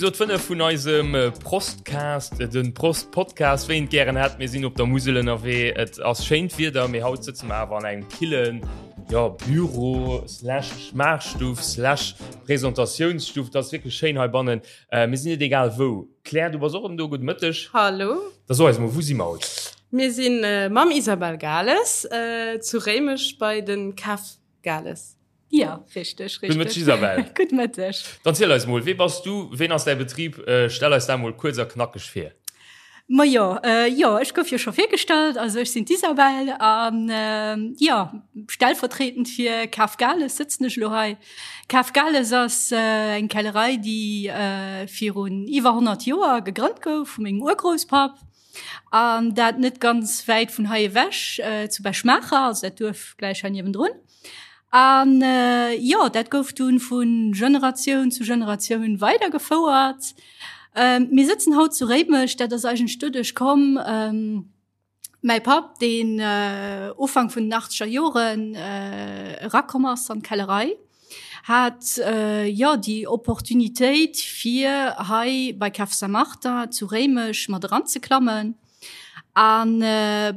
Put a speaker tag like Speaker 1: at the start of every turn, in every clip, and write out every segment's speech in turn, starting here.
Speaker 1: Episod 5 vun eisem Prostcast, den Prost Podcast, wéi een et gären hätt. Mir sinn op der Musel ënnerwee. Et ass schéint Wieder, mee haut sëtze mer awer an engem killen, jo, Büro slash Schmaachstuff slash Presentatiounsstuff. Et ass wierklech schéin heibannen. Mir sinn net egal wou. Claire, du bass och erëm do. Gudde Mëtteg.
Speaker 2: Hallo.
Speaker 1: Da so eis mol, wou si mer haut?
Speaker 2: Mir si mam Isabelle Gales zu Réimech bei de Café Gales.
Speaker 3: Ja, richteg, richteg.
Speaker 1: Gudde Mëtteg, Isabelle.
Speaker 3: Gudde Mëtteg.
Speaker 1: Dann ziel eis mol, wee bass du, ween ass däi Betrib? Stell eis dat mol kuerz a knackeg vir.
Speaker 3: Majo, jo, ech gouf jo scho virgestallt. Also ech sinn d'Isabelle an jo, stellvertretend fir Cave Gales sëtzen ech elo hei. Cave Gales ass eng Kellerei, déi virun iwwer 100 Joer gegrënnt gouf vu mengem Urgrousspapp an dat net ganz wäit vun hei ewech, zu Bech-Maacher, also dat Duerf gläich hei niewendrun. An jo, dat gouf dunn vu Generatioun zu Generatioun weidergefouert. Mir sëtzen haut zu Réimech, dat ass eigentlech doduerch komm, mäi Papp, deen Ufank vun den achtzeger Joren erakomm ass an d'Kellerei, hat jo déi Opportunitéit fir hei bei Cave Saint-Martin zu Réimech mat eranzeklammen. An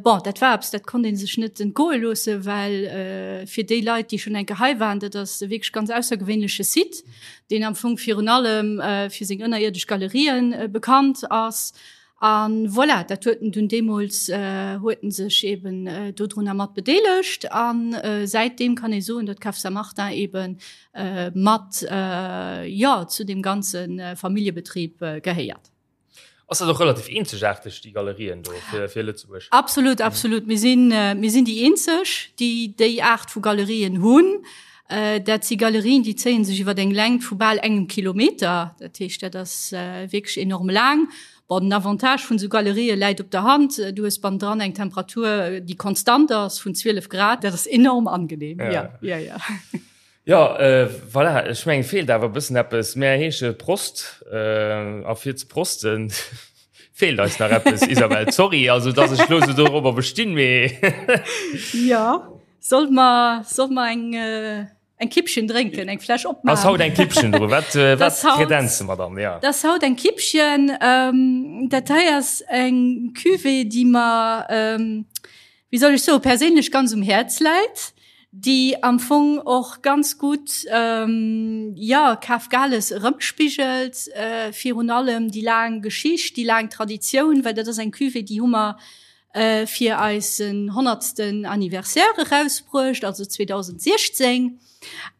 Speaker 3: bon, dat war eppes, dat konnt ee sech net entgoe loossen, well fir déi Leit, déi schonn eng Kéier hei waren, dat ass e wierklech ganz aussergewéinleche Site, deen am Fong virun allem fir seng ënnerierdesch Galerien bekannt ass. A voilà, dat huet en dunn deemools, huet en sech eeben dodrunner mat bedeelegt. A säitdeem kann ee soen, datt d'Cave Saint-Martin eebe mat, jo, zu deem ganze Familljebetrib gehéiert.
Speaker 1: Ass dat och relativ eenzegaarteg, déi Galerien do fir, fir Lëtzebuerg?
Speaker 3: Absolut, absolut. Mir sinn, mir sinn déi eenzeg, déi déi Aart vu Galerien hunn. Dat si Galerien, déi zéie sech iwwer eng Längt vu bal engem Kilometer. Dat heescht, dat ass wierklech enorm laang. Bon, den Avantage vun esou Galerië läit op der Hand, Du hues bannendran eng Temperatur, déi konstant ass vun 12 Grad. Dat ass enorm angenehm. Ja, ja, ja.
Speaker 1: Jo, voilà, ech mengen, feelt awer e bëssen eppes. Mär heesche Prost, a fir ze prosten feelt eis nach eppes, Isabelle. Sorry, also dass ech elo esou dorobber bestinn, mee.
Speaker 3: Jo, solle mer, solle mer eng, eng Kippchen drénken, eng Fläsch opmaachen?
Speaker 1: Ass haut eng Kippchen dru? Wat, wat kredenze mer dann?
Speaker 3: Jo. Dat ass haut eng Kippchen. Dat hei ass eng Cuvée, déi mer, wéi soll ech soen, perséinlech ganz um Häerz läit, déi am Fong och ganz gutt, jo, Kaf Gales erëmspigelt, virun allem déi laang Geschicht, déi laang Traditioun, well dat ass eng Cuvée, déi hu mer fir eisen honnertsten Anniversaire erausbruecht, also 2016.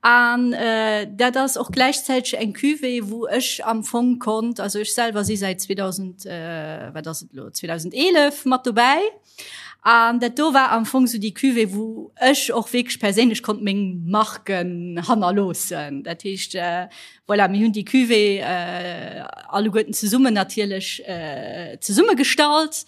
Speaker 3: An dat ass och gläichzäiteg eng Cuvée, wou ech am Fong konnt, also ech selwer si säit 2000, wat ass et elo, 2011 mat dobäi. An dat do war am Fong sou déi Cuvée, wou ech och wierklech perséinlech konnt meng Marken hannerloossen. Dat heescht, voilà, mir hunn déi Cuvée alleguerten zesummen natierlech zesummegestallt.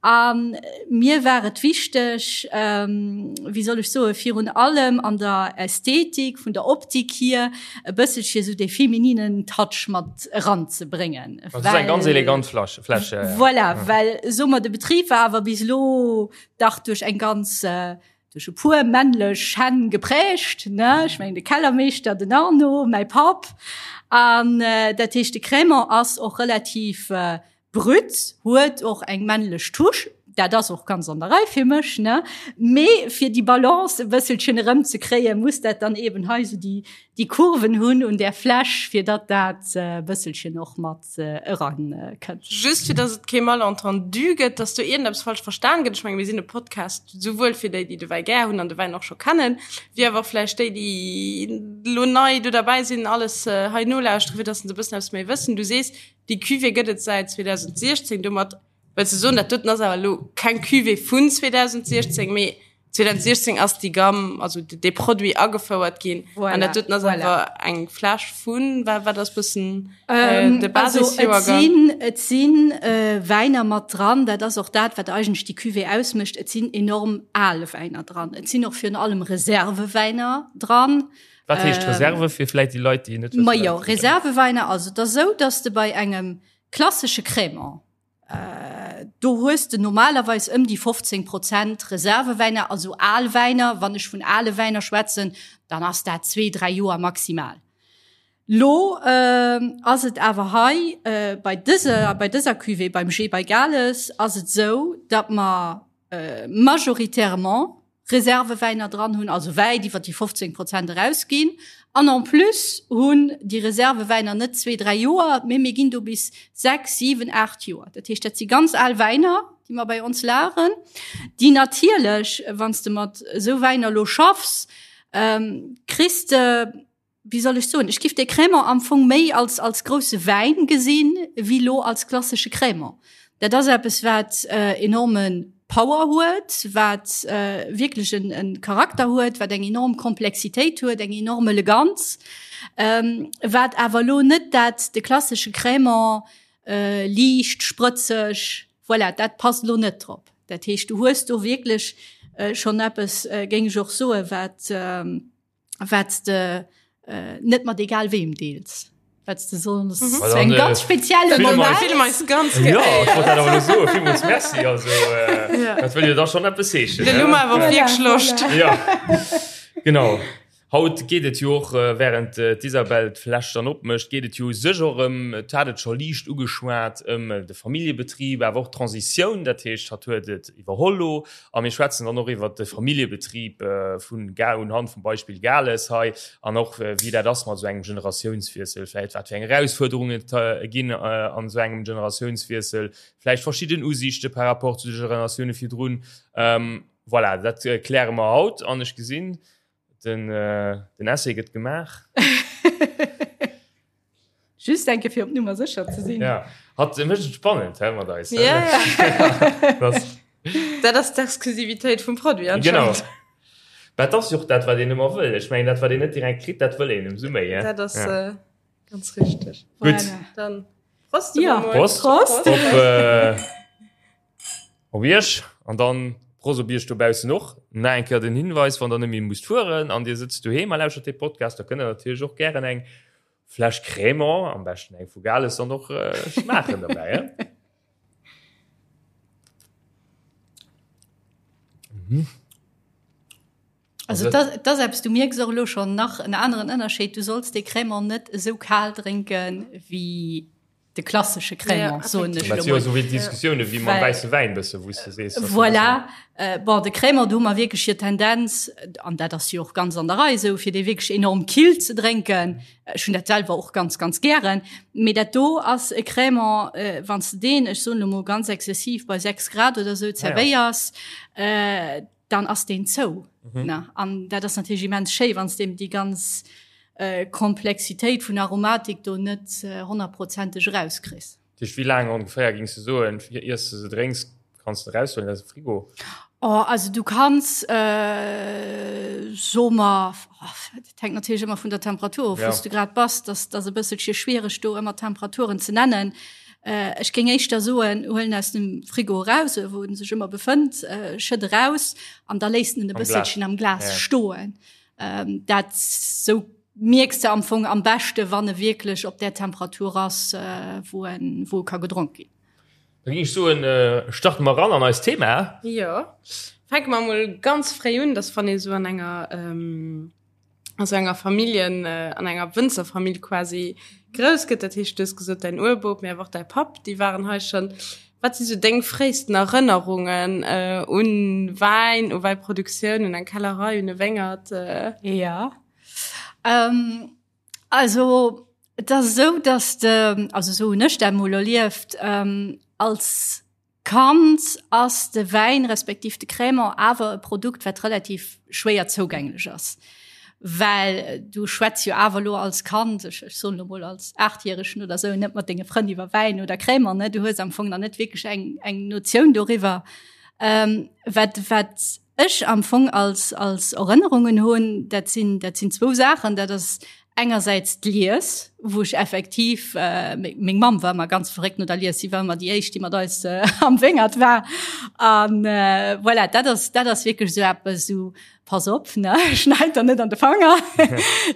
Speaker 3: A mir war et wichteg, wéi soll ech soen, virun allem an der Ästhetik, vun der Optik hier, e bësselche sou dee femininen Touch mat eranzebréngen.
Speaker 1: Dat ass eng ganz elegant Fläsch. Fläsch ja,
Speaker 3: ja. Voilà, well soe mer, de Betrib war awer bis elo dach duerch eng ganz, duerch e puer männlech Hänn geprägt, ne? Ech mengen de Kellermeeschter, den Arno, mäi Papp. An dat heescht, de Crémant ass och relativ Brut, huet och eng männlech Touche, dat ass och ganz an der Rei fir mech, ne? Mee fir déi Balance e bësselchen erëmzekréien, muss dat dann eben hei esou déi, déi Kurven hunn un där Fläsch, fir datt dat e bësselchen och mat erakënnt.
Speaker 2: Just fir datt et kee Malentendu gëtt, datt do iergendeppes falsch verstan gëtt, ech menge mir sinn e Podcast souwuel fir déi, déi de Wäi gär hunn an de Wäin och scho kennen, wéi awer och vläicht déi, déi elo nei do derbäi sinn, alles hei nolauschteren, fir datt se e bëssen eppes méi wëssen. Du sees, Déi Cuvée gëtt et säit 2016. Domat wëlls de soen, dat doten ass awer elo keng Cuvée vun 2016, mee 2016 ass déi Gamme, also dee Produit agefouert ginn. Voilà, an dat doten ass voilà. awer eng Fläsch vun, wat, wat ass bëssen
Speaker 3: äh, de Basisjoergang? Also, et sinn, et sinn äh, Wäiner mat dran, dat ass och dat, wat eigentlech déi Cuvée ausmécht. Et sinn enorm al Wäiner dran. Et sinn och virun allem Reservewäiner dran.
Speaker 1: Wat heescht ähm, Reserve fir vläit déi Leit, déi
Speaker 3: net Ma jo, Reserveweiner, also dat sou, dass de bei engem klassesche Crémant äh, do hues de normalerweis ëm déi 15 Prozent Reservewäiner, also al Wäiner. Wann ech vun ale Wäiner schwätzen, dann ass dat zwee, dräi Joer maximal. Lo ass et awer hei bei dëser, bei dëser Cuvée, beim G bei Gales, ass et esou, datt mer majoritairement Reservewäiner dran hunn, also wäit iwwer déi 15 Prozent erausginn. An en plus hunn déi Reservewäiner net zwee, dräi Joer, mee mir ginn do bis sechs, siwen, aacht Joer. Dat heescht, dat si ganz al Wäiner, déi mer bei ons lageren, déi natierlech, wann s de mat esou Wäiner elo schaffs, kriss de, wéi soll ech soen, ech giff de Crémant am Fong méi als, als grousse Wäin gesinn, wéi lo als klassesche Crémant. Dat ass eppes, wat äh, enorme Power huet, wat äh, wierklech en, en Charakter huet, wat eng enorm Komplexitéit huet, eng enorm Eleganz, ähm, wat awer lo net dat de klassesche Crémant äh, liicht, sprëtzeg, voilà, dat passt lo net drop. Dat heescht, du hues do wierklech äh, schonn eppes, äh, géing ech och soen, wat, ähm, wat de äh, net mat egal wem deels wat de sonst mhm. so eng ganz spezielle
Speaker 2: Moment ganz
Speaker 1: ja, so, merci also äh, ja. dat wëll da schon etwas heeschen ja. genau Haut geet et jo och äh, während äh, d'Isabel d'Fläsch dann opmécht, geet et jo sech och ëm, et hat et scho liicht ugeschwat, ëm äh, de Familljebetrib, awer och d'Transitioun, dat heescht, hatt huet et iwwerholl lo A mir schwätzen dann och iwwert de Familljebetrib vun Ga unhand vum Beispill Gales hei an och wéi dat ass mat esou engem Generatiounswiessel, vläicht wat fir eng Erausfuerderungen et ginn an esou engem Generatiounswiessel, vläicht verschidden Usiichte par rapport zu de Generatioune virdrun. Voilà, dat kläre mer haut an ech gesinn, Den, äh, den Essay gëtt gemaach.
Speaker 3: Just enke fir op Nummer sécher ze sinn.
Speaker 1: Ja. Hat mécht et spannend he mat eis.
Speaker 2: Ja, ja.
Speaker 1: Das,
Speaker 2: Dat ass d'Exklusivitéit vum Produit
Speaker 1: genau.
Speaker 2: anscheinend.
Speaker 1: Dat ass jo och dat, wat een ëmmer wëll. Ech mengen, dat, wat een net direkt kritt, dat wëll een ëmsou méi.
Speaker 2: Dat ass
Speaker 1: ja.
Speaker 2: äh, ganz richteg.
Speaker 1: Gutt.
Speaker 3: Voilà.
Speaker 2: Dann Prost.
Speaker 3: Ja.
Speaker 2: emol.
Speaker 1: Prost.
Speaker 3: Prost.
Speaker 1: Op, äh, Op Iech an dann Prost op Iech dobaussen och. Nach eng Kéier den Hinweis, wann der net méi musst fueren an Dir sëtzt doheem a lauschtert dee Podcast, da kënnt der natierlech och gären eng Fläsch Crémant, am beschten eng vu Gales, dann och schmaachen derbäi, he? Mhm.
Speaker 3: Also dat ass eppes, du mierks och elo schonn nach en aneren Ënnerscheed, du solls dee Crémant net esou kal drénken wéi de klassesche Crémant, soen ech
Speaker 1: Dat
Speaker 3: elo
Speaker 1: si jo
Speaker 3: mol.
Speaker 1: esou wéi Diskussioune wéi mam
Speaker 3: Well-
Speaker 1: wäisse Wäin bësse, wou s de sees, dass e bëssen.
Speaker 3: Voilà, äh, bon, de Crémant, do hu mer wierklech hier Tendenz, an dat ass jo och ganz an der Rei esou, fir dee wierklech enorm kill ze drénken. Ech hunn dat selwer och ganz, ganz gären. Mee dat do ass e Crémant, äh, wann s de deen, ech soen elo mol ganz exzessiv, bei 6 Grad oder esou
Speaker 1: Ah ja.
Speaker 3: zerwéiers, äh, dann ass deen zou.
Speaker 1: Mhm.
Speaker 3: Ne? An dat ass natierlech immens schéi, wann s de déi ganz äh, Komplexitéit vun Aromatik do net äh, honnertprozenteg erauskriss.
Speaker 1: Dat heescht, wéi laang ongeféier gings de soen, fir iers de se drénks, kanns de eraushuelen aus dem Frigo?
Speaker 3: Oh, also du kanns äh, so mer oh, dat hänkt natierlech ëmmer vun der Temperatur of,
Speaker 1: Ja.
Speaker 3: wou s du grad bass, dass dat e bësselche schwiereg do ëmmer Temperaturen ze nennen. Äh, ech géing éischter soen, huel en aus dem Frigo eraus, wou en sech ëmmer befënnt, äh, schëtt eraus an da léisst en e
Speaker 1: Am Glas.
Speaker 3: bësselchen am Glas
Speaker 1: Ja.
Speaker 3: stoen. Ähm, dat sou mierks de am Fong am beschte, wann e wierklech op där Temperatur ass, äh, wou en, wou e ka gedronk ginn.
Speaker 1: Da géing ech soen, äh, starte mer eran an eist Thema.
Speaker 2: Jo, fänke mer mol ganz fréi un, dass wann ee sou an enger ähm, a sou enger Familljen, an enger Wënzerfamill quasi grouss gëtt. Dat heescht, du hues gesot, däin Urbop, mee awer och däi Papp, déi waren hei schonn. Wat si sou deng fréisten Erënnerungen un Wäin, u Wäiproduktioun, un eng Kellerei, un e Wéngert?
Speaker 3: Jo, also et ass esou, datt de, also esou hunn ech dat emol erlieft, als Kand ass de Wäin respektiv de Crémant awer e Produkt, wat relativ schwéier zougänglech ass. Well du schwätz jo awer elo als Kand, ech ech soen elo mol als Aachtjäregen oder esou, net mat denge Frënn iwwer Wäin oder Crémant, ne? Du hues am Fong nach net wierklech eng eng Notioun doriwwer. Wat wat ech am Fong als als Erënnerungen hunn, dat sinn dat sinn zwou Saachen. Dat ass engersäits d'Lies, wou ech effektiv äh, meng Mamm war ëmmer ganz verréckt no der Lies, si war ëmmer déi éischt, déi mat eis äh, am Wéngert war. An äh, voilà, dat ass dat ass wierklech esou eppes, esou pass op, ne, schneit der net an de Fanger,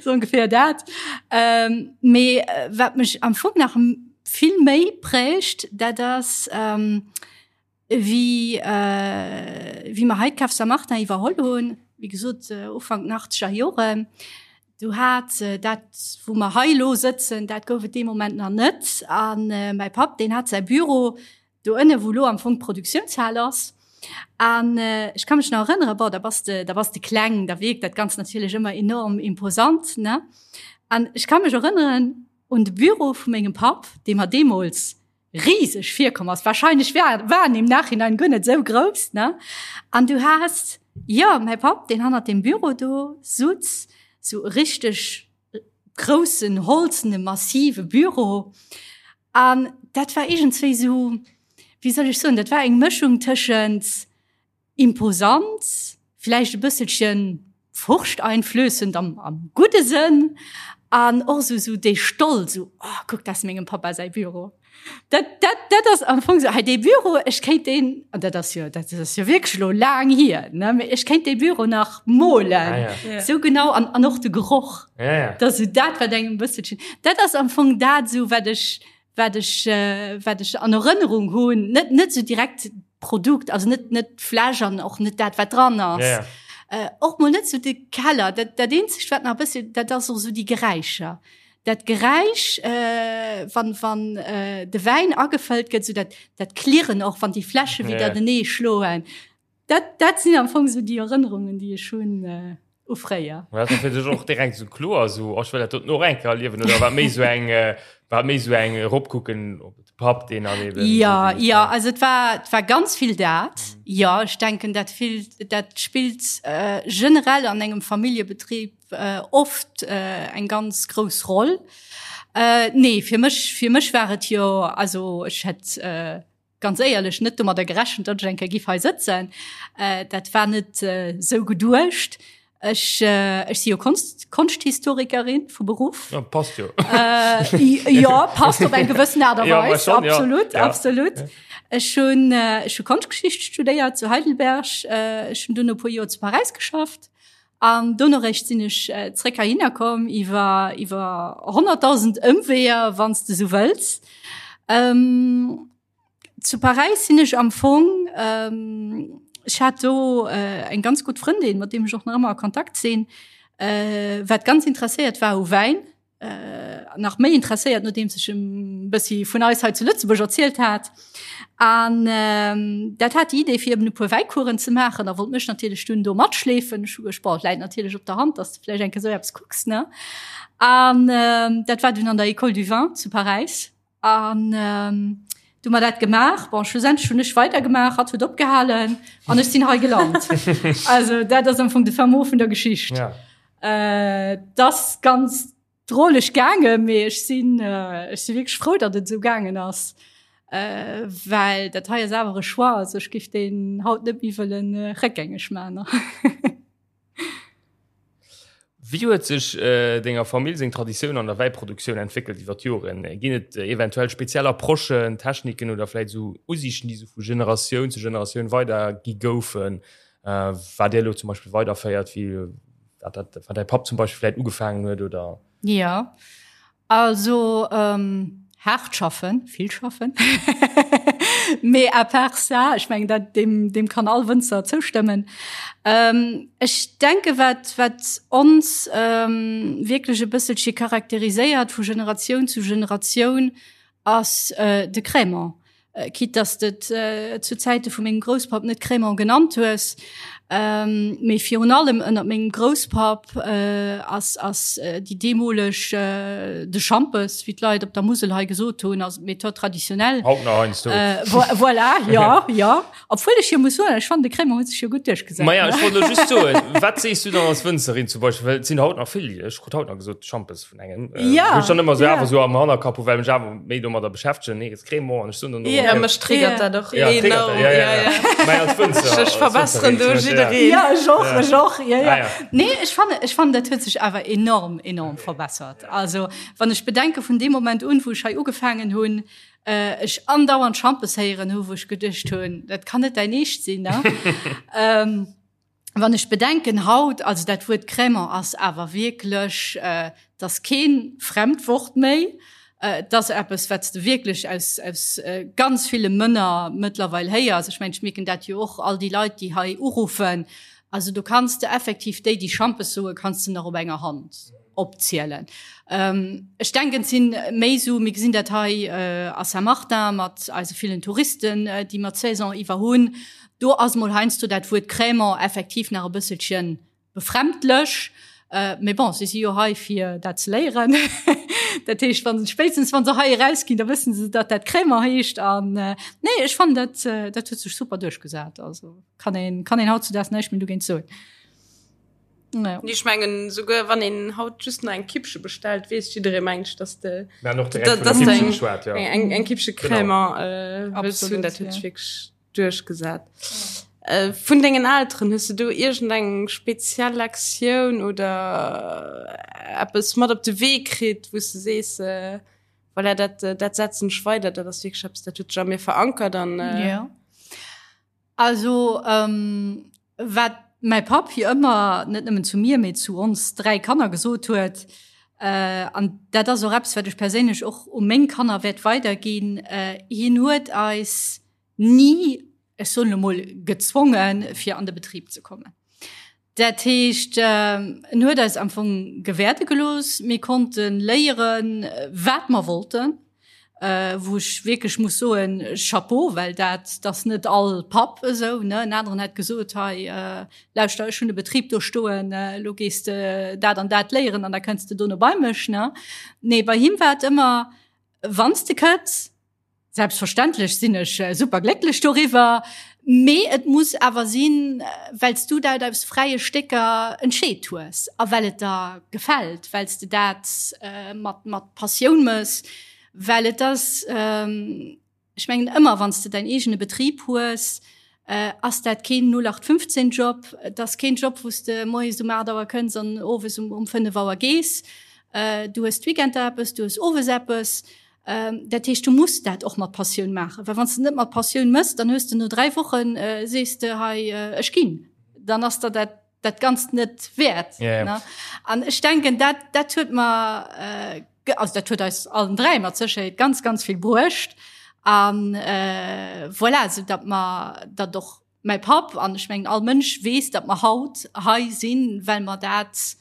Speaker 3: sou ongeféier dat. Ähm, mee äh, wat mech am Fong nach vill méi prägt, dat ass ähm, Wéi wéi mer hei d'Cave Saint-Martin iwwerholl hunn, wéi gesot Ufank den achtzeger Joren, Du hat dat, wou mer hei elo sëtzen, dat gouf et dee Moment nach net. An mäi Papp, deen hat säi Büro do ënne, wou elo am Fong d'Produktiounshal ass. An ech ka mech nach erënneren, bon, da bass de, da bass de kleng, da wierkt dat Ganzt natierlech ëmmer enorm imposant, ne? An ech ka mech erënneren un de Büro vu mengem Papp, dee mer deemools riseg virkomm ass. Wahrscheinlech war, war en im Nachhinein guer net esou grouss, ne? An du has, jo, mäi Papp, deen hannert deem Büro do sutz, sou e richteg groussen, holzene, massive Büro. An dat war iergendswéi sou, wéi soll ech soen, dat war eng Mëschung tëschent Imposant, vläicht e bësselchen furchteinflößend am, am gudde Sënn an och sou, sou dee Stolz, sou, oh, kuck, dat ass mengem Papa säi Büro. Dat, dat, dat ass am Fong sou, hei dee Büro, ech kéint deen, an dat ass jo, dat ass jo wierklech elo laang hier, ne, mee ech kéint dee Büro nach molen,
Speaker 1: Ah, ja.
Speaker 3: Ja. sou genau, an, an och de Geroch.
Speaker 1: Ja, ja.
Speaker 3: Dat ass sou dat, wat engem e bësselchen, dat ass am Fong dat sou, wat ech, wat ech, wat ech an Erënnerung hunn, net, net sou direkt d'Produkt, also net, net d'Fläsch an och net dat, wat dran ass.
Speaker 1: Ja, ja.
Speaker 3: Äh, och mol net sou de Keller. Dat, dat eenzegt, wat nach e bëssi, dat ass och sou déi Geräischer. Dat Geräisch, äh, wann, wann äh, de Wäin agefëllt gëtt, sou dat, dat Klirren och, wann déi Fläsche
Speaker 1: Ja,
Speaker 3: widder
Speaker 1: ja.
Speaker 3: denee schloen. Dat, dat sinn am Fong sou déi Erënnerungen, déi ech hunn äh, u fréier.
Speaker 1: War dat fir dech och direkt sou kloer, sou, oh, ech wëll dat doten och eng Kéier erliewen, oder war et méi sou eng, äh, war et méi sou eng eropkucken op de Papp, deen dann eben
Speaker 3: Ja,
Speaker 1: sou déi-
Speaker 3: ja, also et war, et war ganz vill dat. Jo, ech denken, dat vill, dat spillt äh, generell an engem Familljebetrib äh, oft äh, eng ganz grouss Roll. Äh, nee, fir mech, fir mech war et jo, also ech hätt äh, ganz éierlech net domadder gerechent, datt ech eng Kéier giff hei sëtzen. Äh, dat war net äh, sou geduecht. Ech, äh, ech si jo Konst, Konschthistorikerin vu Beruff.
Speaker 1: Ja, passt jo.
Speaker 3: Äh, ja, passt op eng gewëssen Aart a
Speaker 1: Ja,
Speaker 3: Weis.
Speaker 1: schon, ja.
Speaker 3: Absolut,
Speaker 1: Ja.
Speaker 3: absolut. Ech hunn äh, ech hu Konschtgeschicht studéiert zu Heidelberg. Äh, ech hunn dunn e puer Joer zu Paräis geschafft. An dono réischt sinn ech äh, zréck heihinner komm iwwer iwwer 100.000 Ëmweeër, wann s de sou wëlls. Ähm, zu Paräis sinn ech am Fong, ähm, ech hat do äh, eng ganz gutt Frëndin, mat deem ech och nach ëmmer a Kontakt sinn, äh, wat ganz interesséiert war u Wäin. äh, nach méi interesséiert, nodeems ech em bëssi vun eis hei zu Lëtzebuerg erzielt hat. An ähm, dat hat déi Idee fir eben e puer Wäicoursen ze maachen a wollt mech natierlech dunn do matschleefen. Ech hu gescht, boah, läit natierlech op der Hand, dass du vläicht eng Kéier sou eppes kucks, ne? An ähm, dat war dunn an der École du Vin zu Paräis. An ähm, du mer dat gemaach. Bon, schlussendlech hunn ech weidergemaach, hatt huet opgehalen an ech sinn hei gelant. also dat ass am Fong de fin mot vun der Geschicht.
Speaker 1: Ja.
Speaker 3: Äh, das ganz droleg gaange, mee ech sinn äh, ech si wierklech frou, datt et esou gaangen ass. Äh, well dat hei ass awer e Choix, also ech giff deen haut net méi wëllen äh, réckgängeg maachen.
Speaker 1: Wéi huet sech denger Famill seng Traditioun an der Wäiproduktioun entwéckelt iwwer d'Joren? Ginn et eventuell speziell Approchen, Techniken oder vläit esou Usiichten, déi esou vu Generatioun zu Generatioun weidergi goufen, wat Dir elo zum Beispill weiderféiert, wéi wat dat wat däi Papp zum Beispill vläit ugefaangen huet oder?
Speaker 3: Jo, Also haart schaffen, vill schaffen. Mee à part ça, ech mengen dat deem deem kann all Wënzer zoustëmmen. Ech denke wat wat ons wierklech e bësselche charakteriséiert vu Generatioun zu Generatioun ass de Crémant. Quitte dass de et zu Zäite vu mengem Grousspapp net Crémant genannt hues, mee virun allem ënnert mengem Grousspapp ass ass déi deemoleg de Schampes, wéi d'Leit op der Musel hei gesot hunn, also d'Méthode traditionnelle.
Speaker 1: Haut nach heiansdo.
Speaker 3: Voilà, jo, jo. Obwuel ech jo muss soen, ech fannen de Crémant huet sech jo gutt duerchgesat.
Speaker 1: Maja, ech wollt elo just soen, wat sees du dann als Wënzerin zum Beispill, well et sinn haut nach vill, ech krut haut nach gesot Schampes vun engem, äh,
Speaker 3: Ja,
Speaker 1: wou ech dann ëmmer sou
Speaker 3: ja.
Speaker 1: awer sou am Hannerkapp hu, well mech awer méi domadder beschäftegen, nee, et ass Crémant an ech soen dann och,
Speaker 2: Ja,
Speaker 1: okay.
Speaker 2: mech triggert
Speaker 3: Ja.
Speaker 2: dat och
Speaker 1: Ja, triggert
Speaker 2: enorm.
Speaker 1: dat, ja, ja, ja. Mä als Wënzer,
Speaker 2: Ech
Speaker 1: als
Speaker 2: verbesseren
Speaker 1: Wënzerin
Speaker 2: do
Speaker 1: zum Beispill, ja.
Speaker 2: jiddereen.
Speaker 3: Ja, ech och,
Speaker 1: Ja.
Speaker 3: ech och, ja, ja.
Speaker 1: Ah, ja.
Speaker 3: Nee, ech fannen, ech fannen, dat huet sech awer enorm, enorm verbessert. Also, wann ech bedenke vun deem Moment un, wou ech hei ugefaangen hunn, ech andauernd Schampes héieren hu, wou ech geduecht hunn, dat kann net däin Eescht sinn, ne? ähm, wann ech bedenken haut, also dat Wuert Crémant ass awer wierklech, äh, dat ass keen Fremdwort méi, äh, dat ass eppes, wat s de wierklech aus, aus äh, ganz ville Mënner mëttlerweil héiers. Ech mengen, ech mierken dat jo och, all déi Leit, déi hei uruffen, also do kanns de effektiv déi, déi Schampes soen, kanns de nach op enger Hand. opzielen. Ech denken, et si méi esou, mir gesinn dat hei a Saint-Martin mat eise villen Touristen, déi mer d'Saison iwwer hunn, do ass mol heiansdo dat Wuert Crémant effektiv nach e bësselchen befremdlech. Mee bon, si si jo hei fir dat ze léieren. Dat heescht, wa se spéitstens wa se hei erausginn, da wësse se, datt dat Crémant heescht. An nee, ech fannen dat, dat huet sech super duerchgesat. Also kann een, kann een hautzudaags näischt méi dogéint soen.
Speaker 2: Ja. Ech mengen souguer wann een haut just nach eng Kippche bestellt, weess jidderee mengt ech, dass de dass de eng, ja. eng, eng Kippche Crémant äh, wëlls hunn. Dat huet sech wierklech duerchgesat. Äh, vun dengen Elteren, hues du do iergendeng speziell Lektioun oder eppes mat op de Wee kritt, wou s de sees, äh, voilà, dat, dat setzen ech weider, dat ass wierklech eppes, dat huet sech a mir verankert an äh,
Speaker 3: Ja. Also ähm, wat mäi Papp jo ëmmer, net nëmmen zu mir, mee zu ons 3 Kanner gesot huet, äh, an dat ass och eppes, wat ech perséinlech och u meng Kanner wäert weiderginn, äh, hien huet eis ni, ech soen elo mol, gezwongen, fir an de Betrib ze kommen. Dat heescht, en huet eis am Fong gewäerde gelooss. Mir konnte léieren, wat mer wollten, wou ech wierklech muss soen, Chapeau, well dat ass net all Papp esou, ne. En aneren hätt gesot, hei, lauschter, ech hunn e Betrib do stoen, elo gees de dat an dat léieren an da kënns de dono bei mech, ne. Nee, bei him war et ëmmer, Wann s de kënns, Selbstverständlech sinn ech super glécklech doriwwer, mee et muss awer sinn, well s du dat aus fräie Stécker entscheet hues a well et der gefält, well s de dat mat mat Passioun mëss, well et ass, ech mengen ëmmer wann s de däin eegene Betrib hues, ass dat keen 0815 Job, et ass keen Job wou s de moies um 8 Auer kënns an owes um 5 Auer gees. Du hues d'Weekender eppes, du hues owes eppes. Dat heescht, du muss dat och mat Passioun maachen, well wann s de net mat Passioun mëss, dann hues de no 3 Wochen, sees de hei ech ginn, dann ass der dat dat Ganzt net wäert.
Speaker 1: Ja, ja.
Speaker 3: An ech denken, dat dat huet mer, also dat huet eis allen 3 mat Sécherheet ganz, ganz vill bruecht. An voilà, esou datt mer dat och mäi Papp an ech mengen all Mënsch weess, datt mer haut hei sinn, well mer dat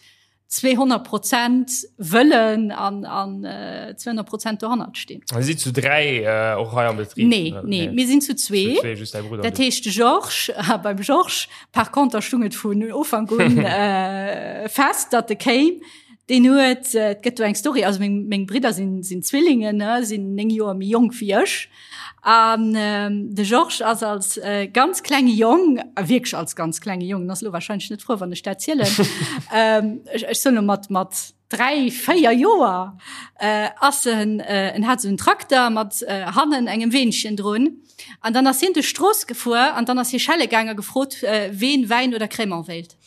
Speaker 3: 200 Prozent wëllen an, an 200 Prozent dohannert stinn.
Speaker 1: Dir sidd zu 3 och hei am Betrib?
Speaker 3: Nee, nee, mir sinn zu zwee.
Speaker 1: Zu zwee, just däi Brudder.
Speaker 3: Dat heescht de Georges, a beim Georges par conter stung et vun Ufank un fest, datt e kéim. Deen huet, et gëtt do eng Story, also meng, meng Bridder sinn, sinn Zwillingen, ne, sinn 9 Joer méi jonk wéi ech. An de Georges ass als ganz klenge Jong, a wierklech als ganz klenge Jong, en ass elo warscheinlech net frou, wann ech dat zielen, ech, ech soen elo mat, mat 3, 4 Joer, ass en, en hat esou en Trakter mat hannen engem Weenchen drun. An dann ass hien duerch d'Strooss gefuer an dann ass hie schelle gaang a gefrot, ween Wäin oder Crémant wéilt.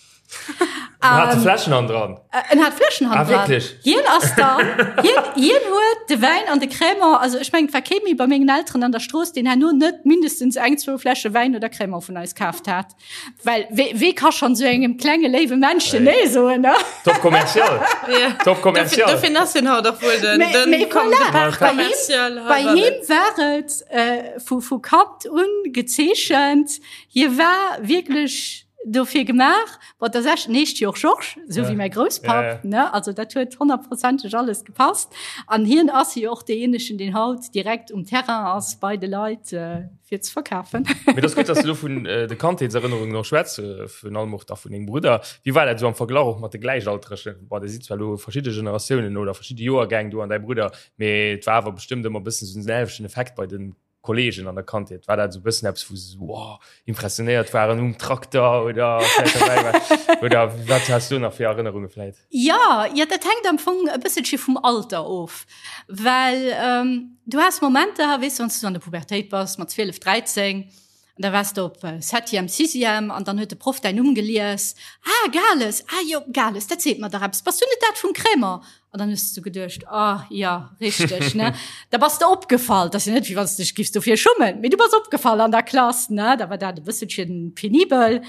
Speaker 1: En hat de Fläschen han dran.
Speaker 3: En hat Fläschen han
Speaker 1: ah,
Speaker 3: dran.
Speaker 1: Wirklich?
Speaker 3: Hien ass dann, hien, hien huet de Wäin an de Crémant, also ech mengen, et war kee méi bei mengen Elteren an der Strooss, deen herno net mindestens eng, zwou Fläsche Wäin oder Crémant vun eis kaaft hat. Well wee, wee ka schonn esou engem klenge léiwe Männchen nee soen, ne?
Speaker 1: Top commercial.
Speaker 2: Ja.
Speaker 1: Top commercial.
Speaker 2: Dofir, dofir ass hien haut och wuel den,
Speaker 3: Mais,
Speaker 2: den
Speaker 3: mais voilà,
Speaker 2: de Part
Speaker 3: bei him,
Speaker 2: commercial.
Speaker 3: bei him war et äh, vu, vu Kand un gezeechent. Hie war wierklech dofir gemaach. Bon, dat ass echt, en heescht jo och Georges, esou wéi mäi Grousspapp,
Speaker 1: Ja, ja.
Speaker 3: ne? Also dat huet honnertprozenteg alles gepasst. An hien ass jo och deejéinegen, deen haut direkt um Terrain ass bei de Leit, fir ze verkafen.
Speaker 1: Mee et ass gutt, dass du elo vun de Kandheetserënnerungen och schwätz, virun allem och da vun dengem Brudder. Wéi war dat esou am Verglach och mat de Gläichaltregen? Bon, der sidd zwar elo verschidde Generatiounen oder verschidde Joergäng, du an däi Brudder, mee et war awer bestëmmt ëmmer e bëssen esou den selwechten Effekt bei de Kollegen an der Kandheet? War dat esou e bëssen eppes, wou se esou wow, impressionéiert waren um Trakter oder vläicht derbäi war? Oder wat has du nach fir Erënnerunge vläicht?
Speaker 3: Ja, ja, dat hänkt am Fong e bësselche vum Alter of, well ähm, du has Momenter, weess du, wann s du an der Pubertéit bass mat 12, 13, an da waars de op Septième, Sixième an dann huet de Proff däin Numm gelies, Ah, Gales, ah jo, Gales, dat seet mer dach eppes, bass du net dat vum Crémant? An dann hues du geduecht, ah ja, richteg, ne? Da bass de opgefall, dat ass jo net, wéi wann s de dech giffs dofir schummen, mee du bass opgefall an der Klass, ne? Da war dat e bësselchen penibel.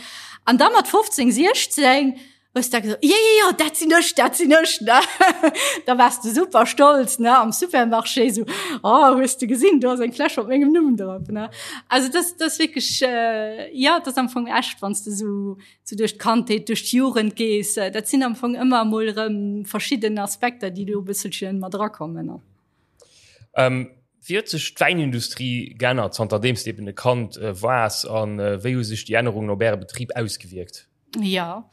Speaker 3: An da mat 15, 16. Hues da gesot, jo, jo, jo, dat sinn ech, dat sinn ech, ne? Da waars de super stolz, ne, am Supermarché esou, oh, hues de gesinn, do ass eng Fläsch mat mengem Numm drop, ne? Also dat, dat ass wierklech, jo, dat ass am Fong echt, wann s de esou, esou duerch d'Kandheet, duerch d'Jugend gees, dat sinn am Fong ëmmer emol erëm verschidden Aspekter, déi do e bësselche mat erakommen, ne?
Speaker 1: Wéi huet sech d'Wäinindustrie geännert, zanterdeems de eben e Kand waars, a wéi hu sech déi Ännerungen op Äre Betrib ausgewierkt?
Speaker 3: Ja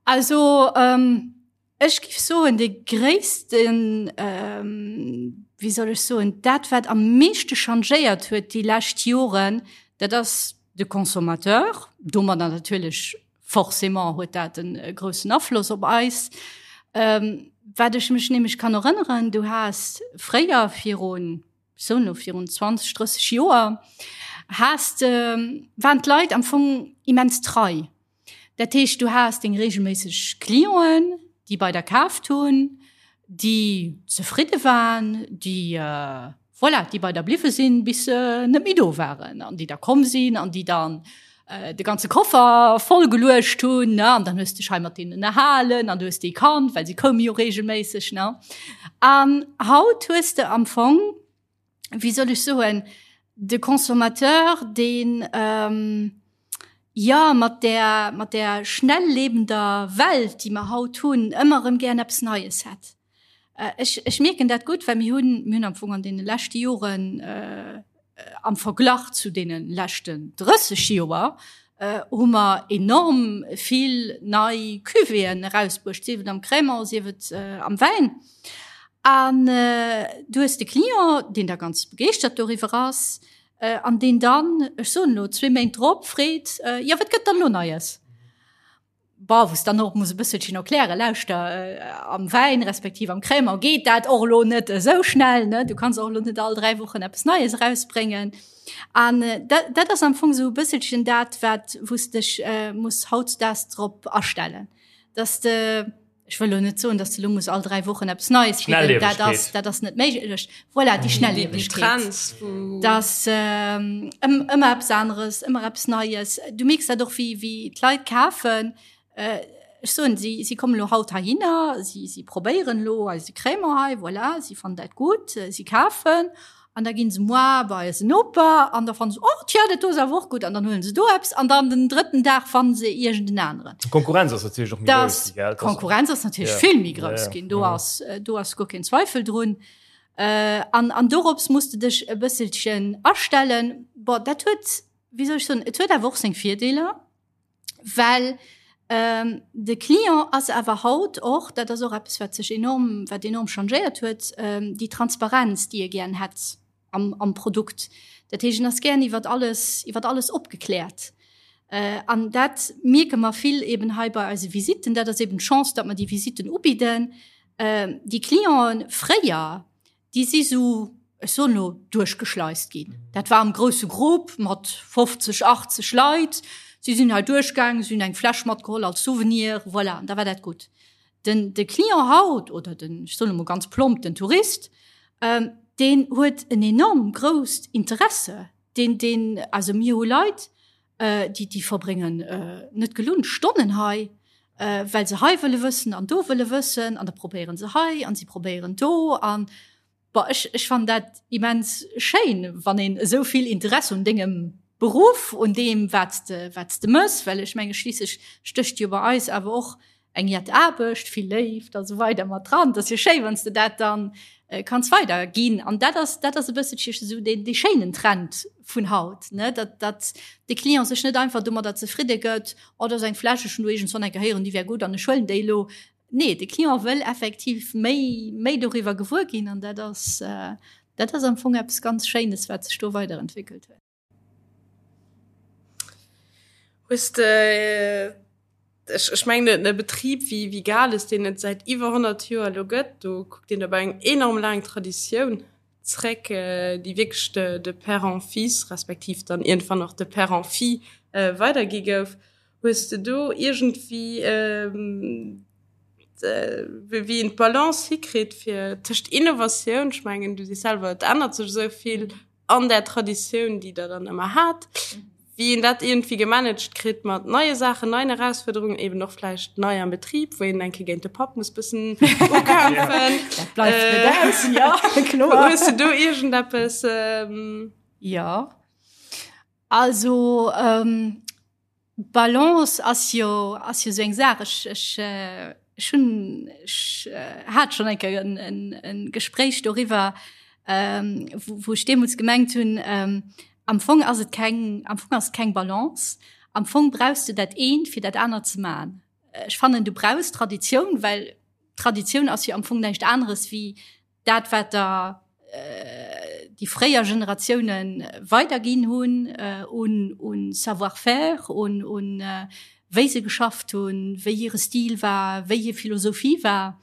Speaker 3: also ähm, ech giff soen de gréissten ähm, wéi soll ech soen, dat wat am meeschte changéiert huet déi lescht Joren, dat ass de Consommateur, domadder natierlech forcément huet dat en groussen Afloss op eis. Ähm, wat ech mech nämlech kann erënneren, du has fréier virun sou no virun 20, 30 Joer, has de, waren d'Leit am Fong immens trei. Dat heescht, du has deng regelméisseg Clienten, déi bei der kaaft hunn, déi zefridde waren, déi, voilà, déi bei der bliwwe sinn, bis se net méi do waren an déi da komm sinn an déi dann de ganze Koffer voll geluecht hunn, ne, an dann hues de dech hei mat deenen ënnerhalen an du hues déi kannt, well si koume jo regelméisseg, ne. An haut hues de am Fong, wéi soll ech soen, de Consommateur, deen, jo, mat där, mat där schnelllebender Welt, déi mer haut hunn, ëmmer erëm gären eppes Neies hätt. Ech, ech mierken dat gutt, well mir hunn, mir hunn am Fong an deene leschte Joren, am Verglach zu deene leschten 30 Joer, hu mer enorm vill nei Cuvéeën erausbruecht, sief et am Crémant, sief et am Wäin. An du hues de Client, deen da ganz begeeschtert doriwwer ass an deen dann, ech soen elo, zwee Méint drop freet, Jo, wat gëtt dann elo Neies? Bon, wou s dann och muss e bësselchen erklären, lauschter, am Wäin respektiv am Crémant geet dat och elo net esou schnell, ne? Du kanns och elo net all 3 Wochen eppes Neies erausbréngen. An dat, dat ass am Fong esou e bësselchen dat, wat, wou s dech muss hautdesdaags drop astellen, dass de, Ech wëll elo net soen, dass de lo muss all 3 Wochen eppes Neies bidden. Dat ass, dat ass net méiglech. Voilà, déi Schnelliewegkeet. Dass ähm, ëmmer eppes aneres, ëmmer eppes Neies. Du mierks dat och, wéi, wéi d'Leit kafen. Äh, ech soen, si, si kommen lo haut heihinner, si, si probéieren lo eise Crémant hei, voilà, si fannen dat gutt, si kafen. An da ginn se moi bei eisen Noper an da fannen se, oh tja, dat do ass awer och gutt an dann huelen se do eppes an dann den drëtten Dag fannen se iergend en aneren.
Speaker 1: D'Konkurrenz ass natierlech och méi grouss gi, gell?
Speaker 3: D'Konkurrenz ass natierlech vill méi grouss ginn, do ass, do ass guer keen Zweifel drun. An, an dorops muss de dech e bësselchen astellen. Bon, dat huet, wéi soll ech soen, et huet awer och seng Virdeeler. Well ähm, de Client ass awer haut och, dat ass och eppes, wat sech enorm, wat enorm changéiert huet, ähm, déi Transparenz, déi e gären hätt am, am Produkt. Dat heescht, en ass gären iwwer alles, iwwer alles opgekläert. Äh, an dat mierke mer vill eben hei bei eise Visitten. Dat ass eben d'Chance, datt mer déi Visitten ubidden. Äh, déi Clienten fréier, Déi si sou, ech soen elo, duerchgeschleist ginn. Dat war am grousse Grupp mat 50, 80 Leit. Si sinn hei duerchgaangen, si hunn eng Fläsch matgeholl als Souvenir, voilà, an da war dat gutt. Den, de Client haut oder den, ech soen emol ganz plomp, den Tourist, deen huet en enorm grousst Interesse. Deen, deen, also mir hu Leit, déi, déi verbréngen net gelunn Stonnen hei, well se hei wëlle wëssen an do wëlle wëssen an da probéieren se hei an si probéieren do an bon ech, ech fannen dat immens schéin, wann een esou vill Interesse un dengem Beruff, un deem wat s de, wat s de mëss, well ech menge schliisslech stécht jo bei eis awer och eng jett Aarbecht, vill Léift a sou weider mat dran. Et ass jo schéi, wann s de dat dann kanns weider ginn. An dat ass, dat ass e bësselche esou deen, dee schéinen Trend vun haut, ne, datt, datt de Client sech net einfach domadder zefridde gëtt, oh, do ass eng Fläsch, ech hunn do iergendswann eng Kéier héieren, déi wär gutt an ech huelen déi elo. Nee, de Client wëll effektiv méi, méi doriwwer gewuer ginn an dat ass, dat ass am Fong eppes ganz Schéines, wat sech do weiderentwéckelt huet.
Speaker 2: Hues de, ech, ech mengen e Betrib wéi, wéi Gales, deen et säit iwwer 100 Joer elo gëtt, do kuckt een op eng enorm laang Traditioun zréck, déi wierklech de, de Père en Fils, respektiv dann iergendwann och de Père en Fille weidergi gouf. Hues de do iergendwéi, wéi een d'Balance hikritt fir tëscht Innovatioun, ech mengen du sees selwer, et ännert sech esou vill, an där Traditioun, déi Der dann ëmmer hat. Wéi een dat iergendwéi gemanagt kritt mat neie Saachen, neien Erausfuerderungen, eben och vläicht nei am Betrib, wou een eng Kéier géint de Papp muss bëssen ukämpfen.
Speaker 3: Dat bleift net aus, jo, kloer.
Speaker 2: Hues du do iergendeppes?
Speaker 3: Jo, also Balance ass jo, ass jo esou eng Saach. Ech, ech, ech hunn, ech hat schonn eng Kéier en, en, en Gespréich doriwwer, wou, wou ech deemools gemengt hunn, Am Fong ass et keng, am Fong ass et keng Balance. Am Fong brauchs de dat eent, fir dat anert ze man. Ech fannen, du brauchs Traditioun, well Traditioun ass jo am Fong näischt aneres wéi dat, wat der déi fréier Generatioune weiderginn hunn un, un Savoir-faire, un, un wéi se geschafft hunn, wéi hire Stil war, wéi hir Philosophie war.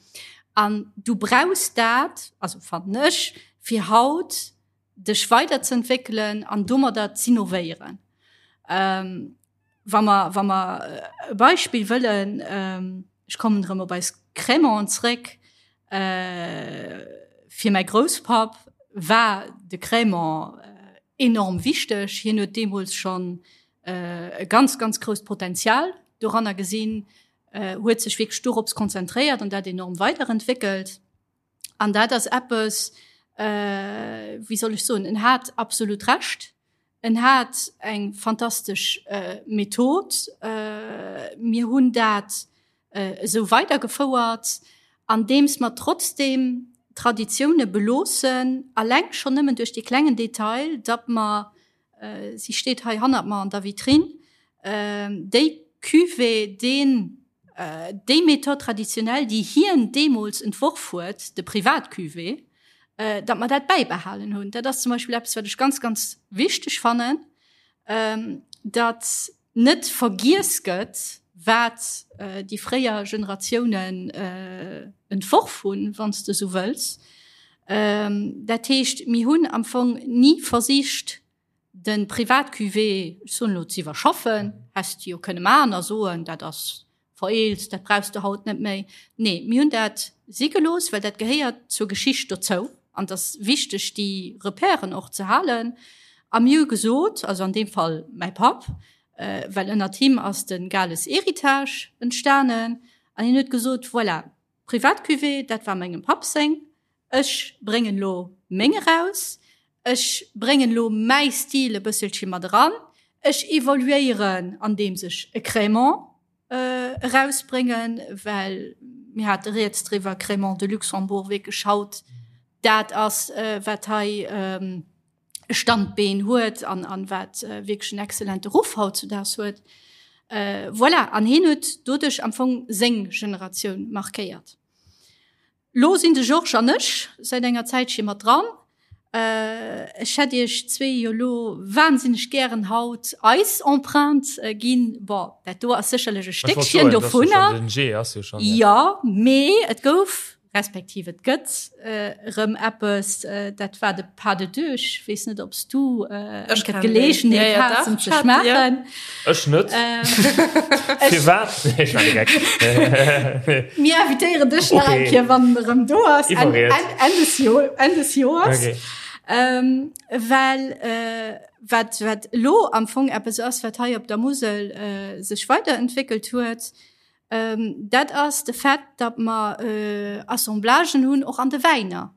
Speaker 3: An du brauchs dat, also fannen ech, fir haut dech weiderzeentwéckelen an domadder z'innovéieren. Ähm, wa mer, wa mer e Beispill wëllen, ähm, ech kommen erëm op eis Crémanten zréck, äh, fir mäi Grousspapp war de Crémant enorm wichteg. Hien huet deemools schonn äh, e ganz, ganz grousst Potenzial doranner gesinn, äh, huet sech wierklech dorops konzentréiert an dat enorm weiderentwéckelt. An dat ass eppes, äh, wéi soll ech soen, en hat absolut Recht. En hat eng fantastesch äh, Method. Äh, mir hunn dat äh, esou weidergefouert, andeems mer trotzdem Traditioune beloossen, alleng schonn nëmmen duerch dee klengen Detail, datt mer äh, si steet hei hannert mer an der Vitrinn, äh, déi Cuvée, deen Déi Méthode traditionnelle, déi hien deemools entworf huet, de Privat-Cuvée, datt mer dat bäibehalen hunn. Dat ass zum Beispill eppes, wat ech ganz, ganz wichteg fannen, datt net vergiess gëtt, wat déi fréier Generatiounen entworf hunn, wann s de esou wëlls. Dat heescht, mir hunn am Fong ni versicht, De Privat-Cuvée, ech soen elo, ze iwwerschaffen, häss de jo kënne maachen a soen, dat ass vereelzt, dat brauchs de haut net méi. Nee, mir hunn dat si gelooss, well dat gehéiert zur Geschicht dozou an et ass wichteg, déi Repèren och ze halen. A mir hu gesot, also an deem Fall mäi Papp, well ënnert him ass de Gales Héritage entstanen, an hien huet gesot, voilà, Privat-Cuvée, dat war mengem Papp seng, Ech bréngen elo meng eraus, ech bréngen elo mäi Stil e bësselche mat eran, ech evoluéieren andeems ech e Crémant erausbréngen, well mir hate rieds driwwer, Crémant de Luxembourg wierklech haut dat ass, wat hei e Standbeen huet an an wat wierklech en excellente Ruff hautzudaags huet. Voilà, an hien huet doduerch am Fong seng Generatioun markéiert. Lo sinn de Georges an ech säit enger Zäitche mat dran. Ech hätt iech zwee jo lo wahnsinneg gären haut eis Empreinte ginn. Bon, dat do ass sécherlech e Stéckchen dovunner. Jo, mee et gouf, respektiv et gëtt erëm eppes, dat war de Pas de deux. Ech weess net, ob s du eng Kéier d'Geleegenheet has, en ze schmaachen.
Speaker 1: Ech net. Firwat? Nee, ech war direkt.
Speaker 3: Mir invitéieren dech nach eng Kéier, wann en erëm do ass. Enn, Enn, Enn des Jo, Enn des Joers. Okay. Ähm, well äh, wat, wat elo am Fong eppes ass, wat hei op der Musel äh, sech weiterentwéckelt huet, ähm, dat ass de Fait, datt mer äh, Assemblagen hunn, och an de Wäiner.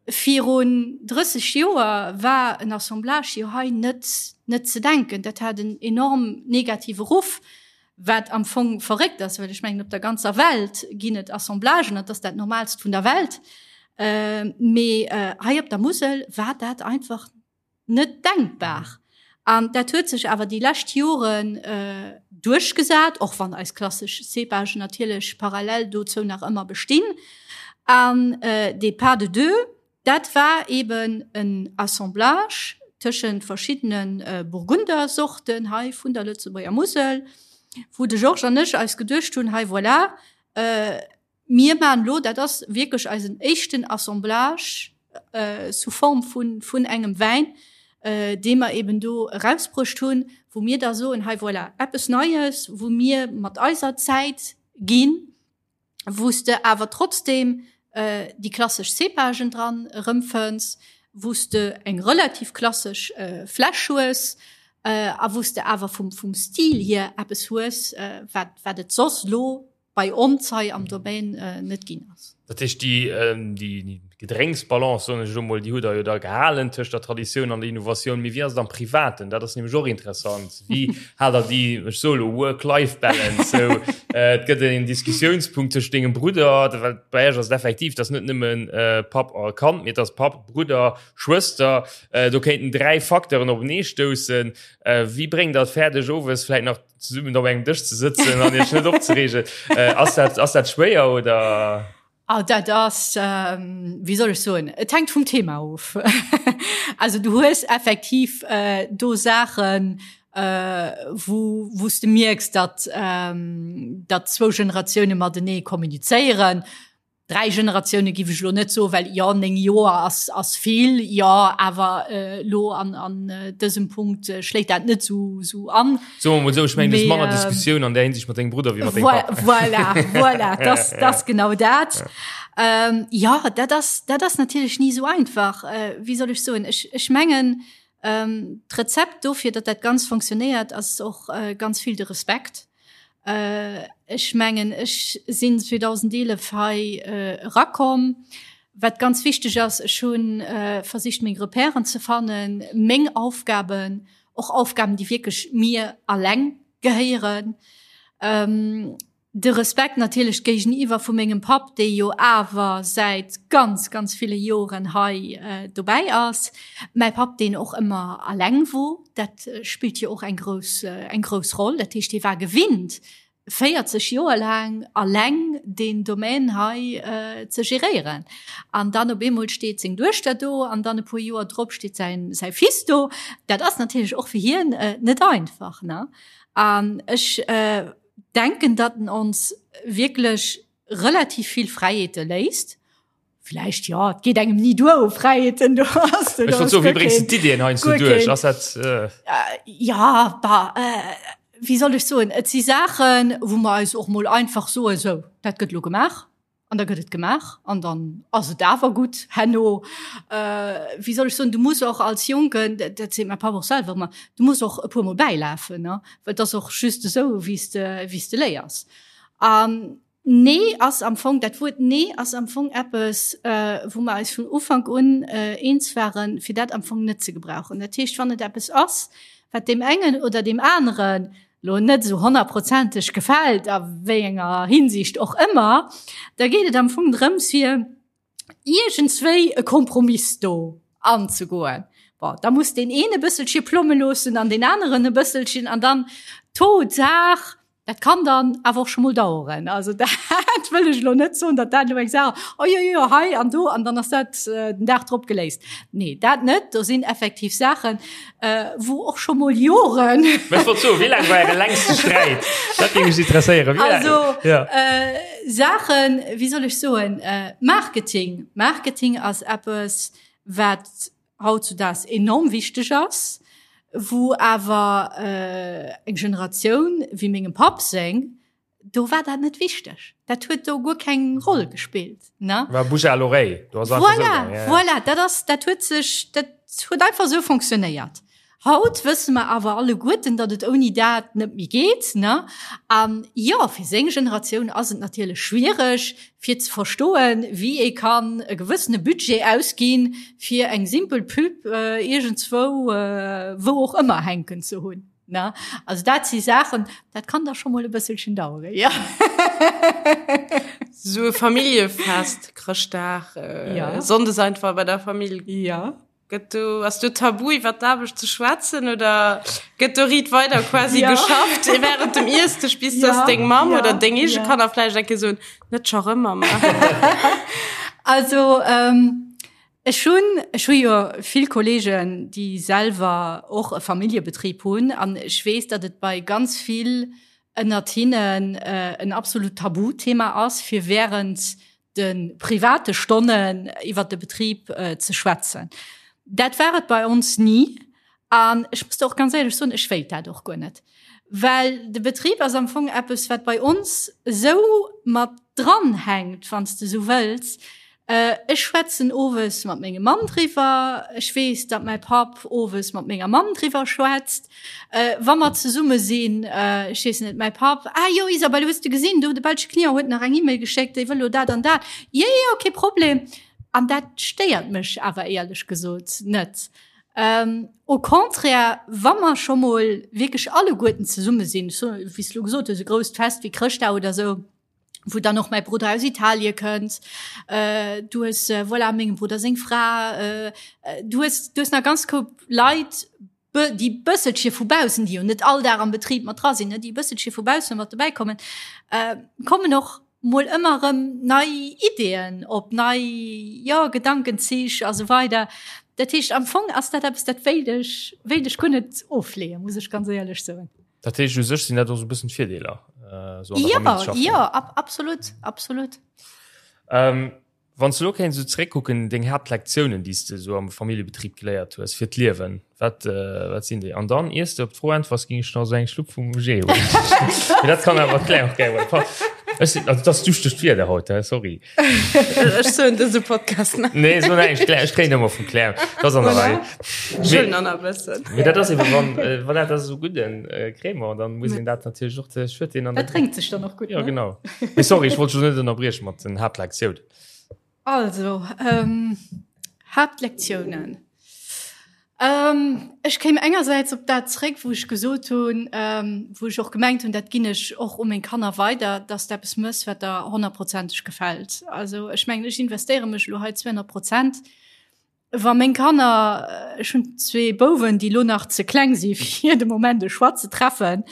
Speaker 3: Virun 30 Joer war en Assemblage jo hei net net ze denken. Dat hat en enorm negative Ruff, wat am Fong verréckt ass, well ech mengen op der ganzer Welt ginn et Assemblagen, dat ass dat Normalst vun der Welt. Mee hei op der Musel war dat einfach net denkbar. An dat huet sech awer déi lescht Joren duerchgesat, och wann eis klassesch Cépagen natierlech parallel dozou nach ëmmer bestinn. An dee Pas de deux, dat war eeben en Assemblage tëschent verschiddene Burgundersorten hei vun der Lëtzebuerger Musel, wou de Georges an ech eis geduecht hunn, hei voilà, Mir maachen elo, dat ass wierklech eisen éischten Assemblage sous forme vun, vun engem Wäin, dee mer eben do erausbruecht hunn, wou mir da soen, hei voilà, eppes Neies, wou mir mat eiser Zäit ginn, wou s de awer trotzdeem déi klassesch Cépagen dran erëmfënns, wou s de eng relativ klassesch Fläsch hues. a wou s de awer vum, vum Stil hier eppes hues, wat, wat et soss elo bei ons hei am Domaine net ginn ass.
Speaker 1: Dat heescht, déi, déi Gedrénksbalance, soen ech elo mol, déi hutt Der jo da gehalen tëscht der Traditioun an der Innovatioun. Mee wéi ass et am Privaten? Dat ass nämlech och interessant. Wéi haalt Der déi, ech soe elo Work-Life-Balance, sou et gëtt en Diskussiounspunkt tëscht dengem Brudder, well bei Iech ass et effektiv, et ass net nëmmen Papp a Kand, mee et ass Papp, Brudder, Schwëster. Do kéinten 3 Facteuren openee stoussen. Wéi bréngt Der et fäerdeg, owes vläicht nach zesummen op engem Dësch ze sëtzen an iech net opzereegen? Ass dat, ass dat schwéier oder?
Speaker 3: Oh, dat ass, ähm, wéi soll ech soen, et hänkt vum Thema of. Also du hues effektiv äh, do Saachen, äh, wou, wou s de mierks, datt, ähm, datt zwou Generatioune matenee kommunizéieren. 3 Generatioune giff ech elo net soen, well jo 9 Joer ass ass vill, jo awer elo an an dësem Punkt schléit dat net sou sou an.
Speaker 1: Soe mer mol esou, ech mengen du hues manner Diskussioun an där Hinsicht mat dengem Brudder wéi mat dengem
Speaker 3: Papp. Voilà, voilà, dat ass genau dat. Jo, dat ass dat ass natierlech ni sou einfach. Wéi soll ech soen, ech ech mengen d'Rezept dofir, datt dat Ganzt fonctionnéiert, ass och ganz vill de Respekt. Ech mengen, ech sinn 2011 hei erakomm. Wat ganz wichteg ass, ech hu versicht, meng Repèren ze fannen, meng Aufgaben, och Aufgaben, déi wierklech mir alleng gehéieren. De Respekt natierlech géigeniwwer vu mengem Papp, dee jo awer säit ganz, ganz ville Joren hei dobäi ass. Mäi Papp, deen och ëmmer alleng wor, dat spillt jo och eng grouss, eng grouss Roll. Dat heescht, hie war gewinnt, 40 Joer laang alleng deen Domaine hei ze geréieren. An dann op eemol steet seng Duechter do an dann e puer Joer drop steet säin, säi Fils do. Dat ass natierlech och fir hien net einfach, ne? An ech denken, datt en ons wierklech relativ vill Fräiheete léisst. Vläicht, jo, et geet engem ni duer u Fräiheeten, do ass
Speaker 1: do. Ech wollt soen, wéi bréngs de d'Iddien heiansdo duerch? Ass dat.
Speaker 3: Ja, bah, wéi soll ech soen, et si Saachen, wou mer eis och mol einfach soen, sou, dat gëtt elo gemaach. An da gëtt et gemaach an dann ass et awer gutt herno. Wéi soll ech soen, du muss och als Jonken, dat seet mäi Papp och selwer ëmmer, du muss och e puermol bäilafen, ne, well et ass och just esou, wéi s de, wéi s de léiers. An Nee ass am Fong, dat Wuert Nee ass am Fong eppes, wou mer eis vun Ufank un eens waren, fir dat am Fong net ze gebrauchen. Dat heescht, wann et eppes ass, wat deem engen oder deem aneren lo net esou honnertprozenteg gefält, a wéi enger Hinsicht och ëmmer, da geet et am Fong drëms, fir iergendswéi e Kompromiss do anzegoen. Bon, da muss deen een e bësselche plomme loossen an deen aneren e bësselchen an dann tôt ou tard, dat kann dann awer och scho mol daueren. Also dat wëll ech elo net soen, datt dat elo eng Saach, oh jo, jo, hei an do an dann ass dat den Dag drop geléist. Nee, dat net. Do sinn effektiv Saachen, Äh, wou och scho mol Joren.
Speaker 1: Mä ech wollt soen, wéi laang war äre längste Sträit? Dat géing mech interesséieren.
Speaker 3: Wéi laang? Also, ja. äh, Saachen, wéi soll ech soen, äh, Marketing. Marketing ass eppes, wat hautzudaags enorm wichteg ass, wou awer äh, eng Generatioun wéi mengem Papp seng, do war dat net wichteg. Dat huet do guer keng Roll gespillt
Speaker 1: ne? War Bouche à l'oreille.
Speaker 3: Do ass einfach voilà, esou, ja, ja. Voilà, dat ass, dat huet sech, dat huet einfach esou fonctionnéiert. Haut wësse mer awer alleguerten, datt et ouni dat net méi geet ne? An jo, fir seng Generatioun ass et natierlech schwiereg fir ze verstoen, wéi ee kann e gewëssene Budget ausginn, fir eng simpel Pub äh, iergendzwou, äh, wou och ëmmer hänken ze hunn. Ne? Also dat si Saachen, dat kann da scho mol e bësselchen daueren, ja.
Speaker 2: So e Familljefest, Chrëschtdag, äh, ja. Sonndes einfach bei der Famill.
Speaker 3: Ja.
Speaker 2: Gëtt do, ass do Tabu iwwer d'Aarbecht ze schwätzen oder gëtt do riit weider quasi ja. geschafft während dem Iessdësch bis ja. dass deng Mamm ja. oder deng eege ja. Kanner vläicht eng Kéier soen, net scho rëm Mama.
Speaker 3: Also ähm, Ech hunn, ech hu jo vill Kollegen, déi selwer och e Familljebetrib hunn an ech weess, datt et bei ganz vill ënnert hinnen en absolut Tabuthema ass, fir während de private Stonnen iwwert de Betrib ze schwätzen. Dat war et bei ons ni an ech muss der och ganz éierlech soen, ech wéilt dat och guer net, well de Betrib ass am Fong eppes, wat bei ons esou mat dranhänkt, wann s de esou wëlls. Ech schwätzen owes mat mengem Mann driwwer. Ech weess, datt mäi Papp owes mat menger Mamm driwwer schwätzt. Wa mer zesumme sinn, ech weess net, mäi Papp, Ah jo, Isabelle, hues de gesinn, do de belsche Client huet nach eng E-Mail geschéckt, dee wëll elo dat an dat. Jo, jo, kee Problem. An dat stéiert mech awer éierlech gesot net. Au contraire, wa mer scho mol wierklech alleguerten zesumme sinn, wéi s de elo gesot hues, e grousst Fest wéi Chrëschtdag oder esou, wou dann och mäi Brudder aus Italie kënnt, äh, du hues äh, voilà, mengem Brudder seng Fra, äh, äh, du hues, du hues nach ganz Koup Leit, déi bësselche vu baussen, déi jo net all Dag am Betrib mat dra sinn, ne, déi bësselche vu baussen mat dobäi kommen, äh, kommen och mol ëmmer erëm nei Ideeën op, nei, jo, Gedankenzich a sou weider. Dat heescht, am Fong ass dat eppes, dat wéilt ech, wéilt ech guer net ofleeën, muss ech ganz éierlech soen.
Speaker 1: Dat heescht, u sech sinn dat och esou e bëssen d'Virdeeler,
Speaker 3: esou an der Famill ze schaffen. Jo, ab, absolut, absolut.
Speaker 1: Ähm, wann s du elo kéints esou zeréckkucken, deng Haaptlektiounen, déi s de esou am Familljebetrib geléiert hues fir d'Liewen, wat, wat sinn déi? An dann, iers de op d'Fro äntwers, géing ech nach esou eng Schlupp vum Jus huelen. Mee dat kann awer d'Claire och gär huelen. Ech sinn, also et ass duuschtegt Wieder haut, hä, sorry.
Speaker 2: Ech soen dëse Podcast
Speaker 1: net. Nee, so näischt. Claire, ech kréien ëmmer vum Claire. Dat ass an der Rei.
Speaker 2: Schön an a bëssen.
Speaker 1: Mee dat ass eben, wann, äh, voilà, dat ass esou gudden äh, Crémant, dann muss een dat natierlech och, ech huet deen
Speaker 3: an Dat drénkt sech dann och
Speaker 1: gutt, Ja, ne? genau. Mee sorry, ech wollt dech net ënnerbrieche mat den Haaptlektiounen.
Speaker 3: Also, ähm, Haaptlektiounen. Ech kéim engersäits op dat zréck, wou ech gesot hunn, wou ech och gemengt hunn, dat ginn ech och u meng Kanner weider, dass de eppes méchs, wat der honnertprozenteg gefält. Also ech mengen, ech investéiere mech elo hei 200 Prozent. Wa meng Kanner, ech hunn zwee Bouwen, déi elo nach ze kleng si fir de Moment e Choix ze treffen,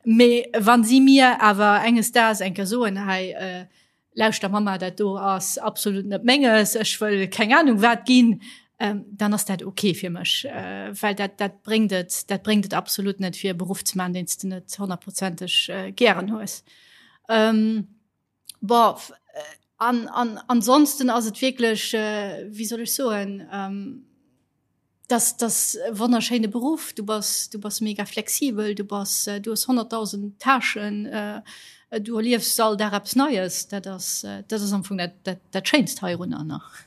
Speaker 3: mee wa si mir awer enges Daags eng Kéier soen, hei, Lauschter Mama, dat do ass absolut net menges, ech wëll keng Ahnung wat ginn, ähm, dann ass dat okay fir mech, äh, well dat, dat bréngt et, dat bréngt et absolut net fir e Beruff ze man, deen s de net honnertprozenteg äh, gären hues. Ähm, boah, äh, an, an ansonsten ass et wierklech, äh, wéi soll ech soen, ähm, Das das e wonnerschéine Beruff. Du bass du bass mega flexibel, du bass du hues 100.000 Tâchen, du erliefs all Dag eppes Neies. Dat ass dat ass am Fong dat dat dat Schéinst heirunner nach.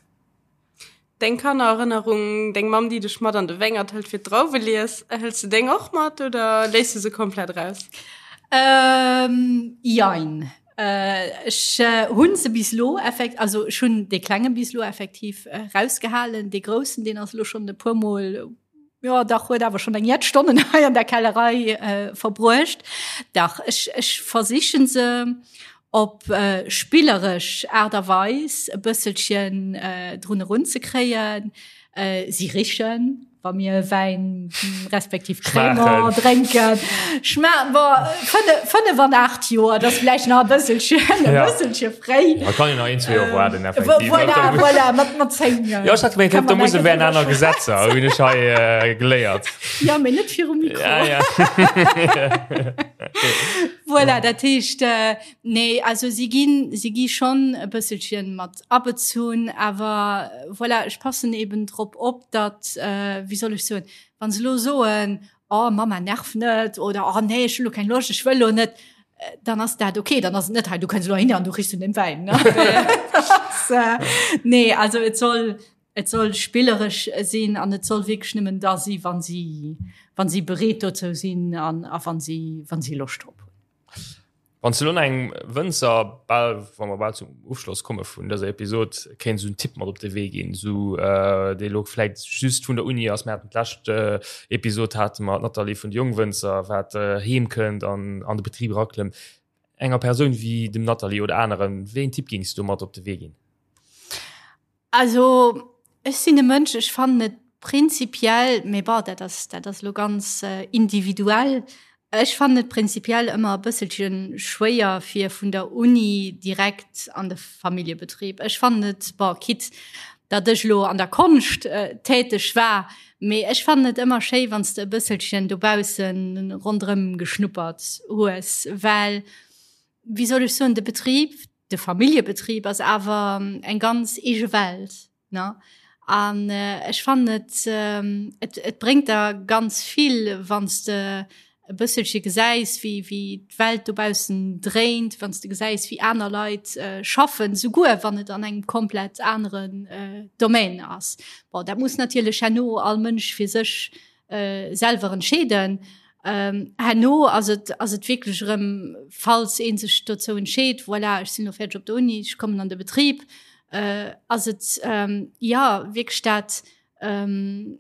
Speaker 2: Deng Kannererënnerung, deng Mamm déi dech mat an de Wéngert hëlt fir d'Drauwelies, hëls de deng och mat oder léiss de se komplett raus?
Speaker 3: Jein. Ech hunn se bis elo effekt also ech hunn dee klenge bis elo effektiv rausgehalen. Dee groussen deen ass elo schonn e puer mol jo dach huet awer schonn eng jett Stonnen hei an der Kellerei verbruecht. Dach ech ech versichen se op spilleresch Aart a Weis e bësselchen drun erunzekréien. Si richen. Wa mir Wäin respektiv Crémant drénken, schma bon, 5 an 8 Joer, dat ass vläicht nach e bësselchen, e bësselche fréi.
Speaker 1: Da kann een nach een, zwee Joer waarden, effektiv.
Speaker 3: Voilà, voilà, mat, mat 10.
Speaker 1: Jo, ech hat gemengt, op der Musel wären aner Gesetzer, hunn ech hei geléiert.
Speaker 3: Jo, mee net virum Mikro.
Speaker 1: Ja, ja.
Speaker 3: Voilà, dat heescht, nee, also si ginn, si gi schonn e bësselchen mat abezunn, awer voilà, ech passen eben drop op, datt, wéi soll ech soen, wa se elo soen, oh Mama nerv net oder oh nee ech hu lo keng Loscht, ech wëll lo net, dann ass dat okay, dann ass et net hei du kënns elo hin an du richs un dem Wäin. Nee, also et soll et soll spilleresch sinn an et soll wierklech nëmmen da si wann si wann si bereet dozou sinn an a wann si wann si Loscht drop hunn.
Speaker 1: Wann s de lo nach engem Wënzer, bal, wa mer bal zum Ofschloss komme vun dëser Episod, kéints esou en Tipp mat op de Wee ginn, esou dee lo vläit just vun der Uni ass, mir haten d'lescht Episod hate mer d'Nathalie vun de Jongwënzer, wat heem kënnt an an de Betrib eraklëmmt. Enger Persoun wéi dem Nathalie oder aneren, wéi een Tipp géings du mat op de Wee ginn?
Speaker 3: Also ech sinn e Mënsch, ech fannen et prinzipiell, mee bon, dat ass, dat ass elo ganz individuell, ech fannen et prinzipiell ëmmer e bësselche schwéier fir vun der Uni direkt an de Familljebetrib. Ech fannen et, bon, quitte datt ech elo an der Konscht täteg war, mee ech fannen et ëmmer schéi wann s de e bësselchen dobausse ronderëm geschnuppert hues, well, wéi soll ech soen, de Betrib, de Familljebetrib ass awer eng ganz eege Welt, ne? An ech fannen et, et, et bréngt der ganz vill, wann s de. e bësselche gesäis, wéi, wéi d'Welt dobaussen dréint, wann s de gesäis, wéi aner Leit äh, schaffen, souguer wann et an engem komplett aneren äh, Domaine ass. Bon, dat muss natierlech herno all Mënsch fir sech äh, selwer entscheeden. Ähm, herno ass et, ass et wierklech erëm, falls ee sech dozou entscheet, voilà, ech sinn elo fäerdeg op der Uni, ech kommen an de Betrib, äh, ass et ähm, ja wierklech dat, ähm,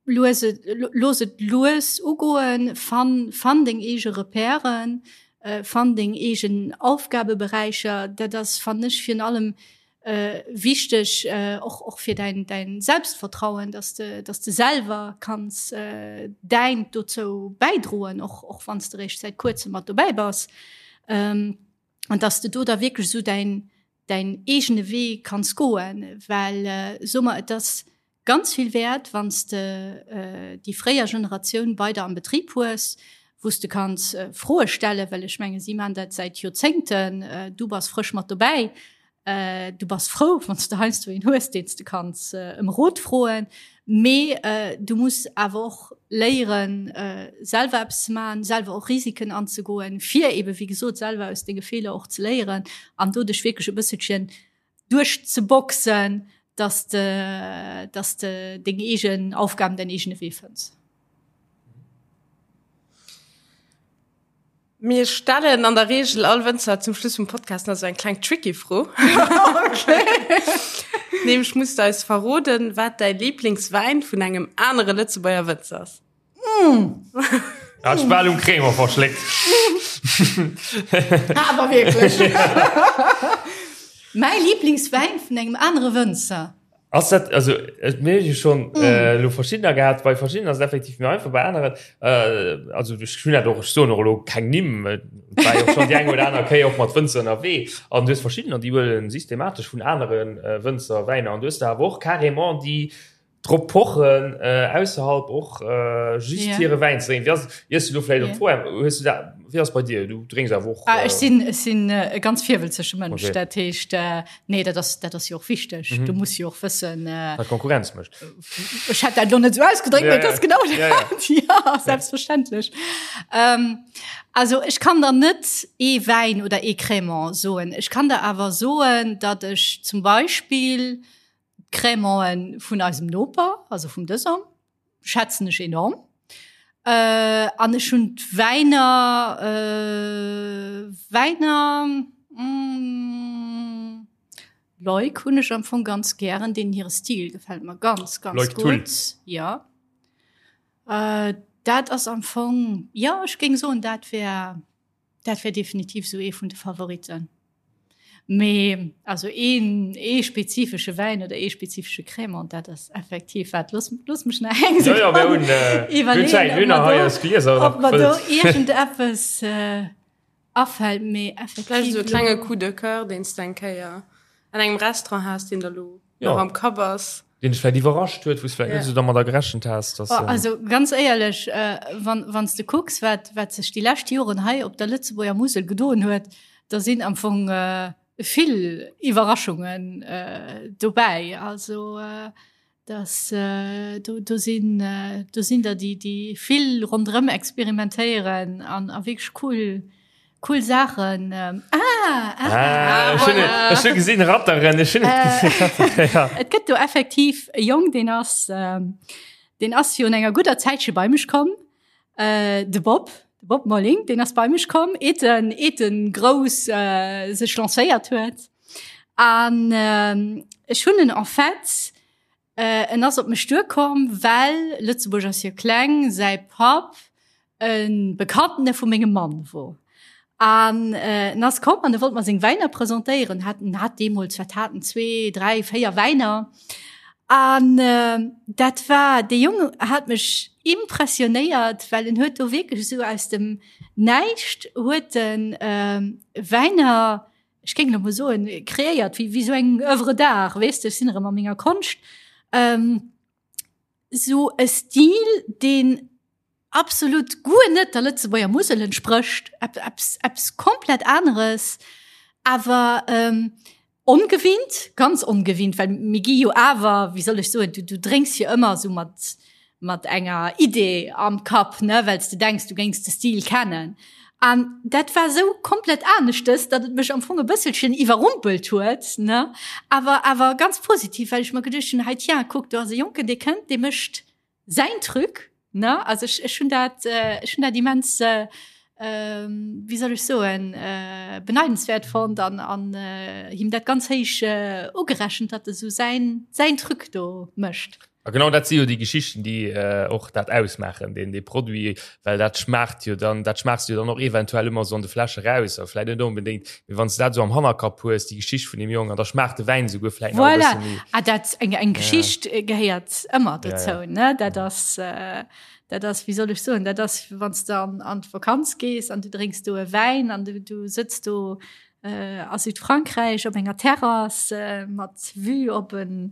Speaker 3: lues et, looss et lues ugoen, fann, fann deng eege Repèren, äh, fann deng eegen Aufgabeberäicher. Dat ass, fannen ech, virun allem äh, wichteg, äh, och, och fir däin, däin Selbstvertrauen, dass de, dass de selwer kanns äh, däint dozou bäidroen, och, och wann s de réischt säit kuerzem mat dobäi bass. Ähm, an dass de do da wierklech esou däin, däin eegene Wee kanns goen, well, äh, so mer, et ass ganz vill wäert, wann s de déi fréier Generatioun bei der am Betrib hues, wou s de kanns Froe stellen, well ech menge si maachen dat säit Joerzéngten, du bass frësch mat dobäi, du bass frou, wann s de heiansdo een hues, deen s de kanns ëm Rot froen, mee du muss awer och léieren, selwer eppes ze maachen, selwer och Risiken anzegoen, fir eebe wéi gesot selwer aus denge Feeler och ze léieren an do dech wierklech e bësselchen duerchzeboxen, dass de, dass de deng eegen Aufgaben, däin eegene Wee fënns.
Speaker 2: Mir stellen an der Reegel all Wënzer zum Schluss vum Podcast nach sou eng kleng tricky Fro. Okay. Nämlech muss de eis verroden, wat däi Liblingswäin vun engem anere Lëtzebuerger Wënzer ass.
Speaker 1: Hat ech bal um Crémant verschléckt.
Speaker 3: Awer wierklech. Mäi Lieblingswäin vun engem anere Wënzer.
Speaker 1: Ass dat, also et mir hu jo schonn elo verschiddener gehat, bei verschiddenen ass et effektiv méi einfach, bei aneren, also ech hunn dat och, ech soen och elo keng Nimm, et war jo schonn déi eng oder aner Kéier och mat Wënzer ënnerwee an du hues verschiddener, déi huele systematesch vun anere Wënzer Wäiner an du hues der awer och carrément déi drop pochen ausserhalb och just yeah. hire Wäin ze drénken. Wéi ass, iers du do vläicht op d'Fro hues du dat, wéi ass bei dir? Du drénks awer och.
Speaker 3: Ah, ech sinn, ech sinn e ganz virwëlzege Mënsch. Okay. Dat heescht, nee, dat ass, dat ass jo och wichteg. Mhm. Du muss jo och wëssen.
Speaker 1: Wat Konkurrenz mécht.
Speaker 3: Ech hätt dat lo net esou ausgedréckt, mee et ass genau dat. Ja, ja. Ja, selbstverständlech. Ähm, also ech kann der net ee Wäin oder ee Crémant soen. Ech kann der awer soen, datt ech zum Beispill, D'Crémanten vun eisem Noper, also vum Dësong, schätzen ech enorm. Äh, an ech hunn d'Wäiner, äh, Wäiner, mm, Leuk hunn ech am Fong ganz gären, deenen hire Stil gefält mer ganz, ganz
Speaker 1: Leuk Thull.
Speaker 3: gutt. Ja. Äh, dat ass am Fong, jo, ech géing soen, dat wär. Dat wär definitiv sou ee vun de Favoriten. Mee also een ee spezifesche Wäin oder ee spezifesche Crémant, dat ass effektiv wat. Looss, looss mech nach eng
Speaker 1: Ja, ja, mir hunn, äh, mir hunn Zäit, mir hunn nach hei eis Glieser
Speaker 3: ob mer do iergendeppes äh, afält, mee effektiv.
Speaker 2: Vläicht esou e klenge Coup de Coeur, deen s de eng Kéier an engem Restaurant has, deen der lo
Speaker 1: Ja.
Speaker 2: nach am Kapp ass.
Speaker 1: Deen dech vläicht iwwerrascht huet, wou s vläicht net esou dermadder gerechent has, dass.
Speaker 3: Oh, also ganz éierlech, äh, wann, wann s de kucks, wat, wat sech déi lescht Joren hei op der Lëtzebuerger Musel gedoen huet, da sinn am Fong äh, vill Iwwerraschungen äh, dobäi. Also äh, das, äh, do, do sinn äh, do sinn der déi, déi vill ronderëm experimentéieren an, a wierklech cool Cool Saachen. Ähm, ah,
Speaker 1: ah, ah, ah, voilà. Ech hu gesinn Ratteren, ech hunn et gesinn.
Speaker 3: Ja. Et gëtt do effektiv e Jong, deen ass, ähm, deen ass virun enger gudder Zäitche bei mech komm. Äh, de Bob, de Bob Molling, deen ass bei mech komm, eet en, eet en grouss äh, sech lancéiert huet. An ähm, ech hunn en en fait En ass op mech duerkomm, well, Lëtzebuerg ass jo kleng, säi Papp e Bekanntene vu mengem Mann wor. An en ass komm an e wollt mer seng Wäiner presentéieren. Hat, en hat deemools, wat hat en, zwee, dräi, véier Wäiner. An dat war, dee Jong hat mech impressionéiert, well en huet do wierklech esou aus dem Näischt huet en Wäiner, ech géing elo mol soen, kreéiert wéi, wéi sou eng Oeuvre d'art, weess de, ech sinn erëm a menger Konscht, ähm, sou e Stil, deen absolut guer net der Lëtzebuerger Musel entsprécht, eppes, eppes komplett aneres, awer ähm, ongewinnt, ganz ongewinnt, well mir gi jo awer, wéi soll ech soen, du, du drénks jo ëmmer sou mat. mat enger Idee am Kapp, ne, well s de denks, du géings de Stil kennen. An dat war esou komplett aneschtes, datt et mech am Fong e bësselchen iwwerrumpelt huet, ne, awer awer ganz positiv, well ech mer geduecht hunn, hei tiens, kuck, do ass e Jonken, dee kënnt, dee mécht säin Truc, ne. Also ech, ech hunn dat, ech hunn dat immens, wéi soll ech soen, beneidenswäert fonnt an an him dat ganz héich ugerechent, datt e sou säin, säin Truc do mécht.
Speaker 1: A genau dat si jo déi Geschichten, déi och dat ausmaachen, deen dee Produit, well dat schmaacht jo dann, dat schmaachs du jo dann och eventuell ëmmer esou an de Fläsche raus, a vläit net onbedéngt, mee wann s de dat esou am Hannerkapp hues, déi Geschicht vun deem Jong, an da schmaacht de Wäin esouguer vläit
Speaker 3: nach e bësse méi. Voilà, ah dat, eng eng Geschicht gehéiert ëmmer dozou, ne, dat ass, dat ass, wéi soll ech soen, dat ass, wann s de an an d'Vakanz gees an du drénks do e Wäin an du du sëtz do a Südfrankräich op enger Terrass mat Vue op en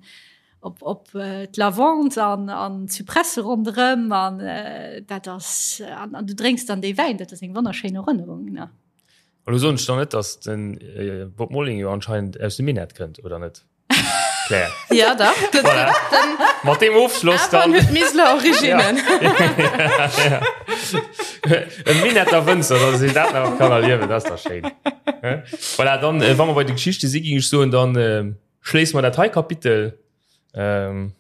Speaker 3: op, op äh, d'Lavande an, an Zypresse ronderëm an äh, dat ass an, an du drénks dann dee Wäin, dat ass eng wonnerschéin Erënnerung. Ne?
Speaker 1: Elo soen ech dann net, dass den äh, Bob Molling jo anscheinend aus dem Minett kënnt, oder net?
Speaker 2: Claire. Ja, dach.
Speaker 1: Voilà. Mat deem Ofschloss dann.
Speaker 2: Awer huet Miseler Originnen.
Speaker 1: Ja. Ja. E Minetter Wënzer, dass een dat nach kann erliewen, dat ass dach schéin. Voilà, dann, äh, wa mer bei de Geschichte si, ging ech soen, dann äh, Schléisse mer dat hei Kapitel.
Speaker 2: Ähm.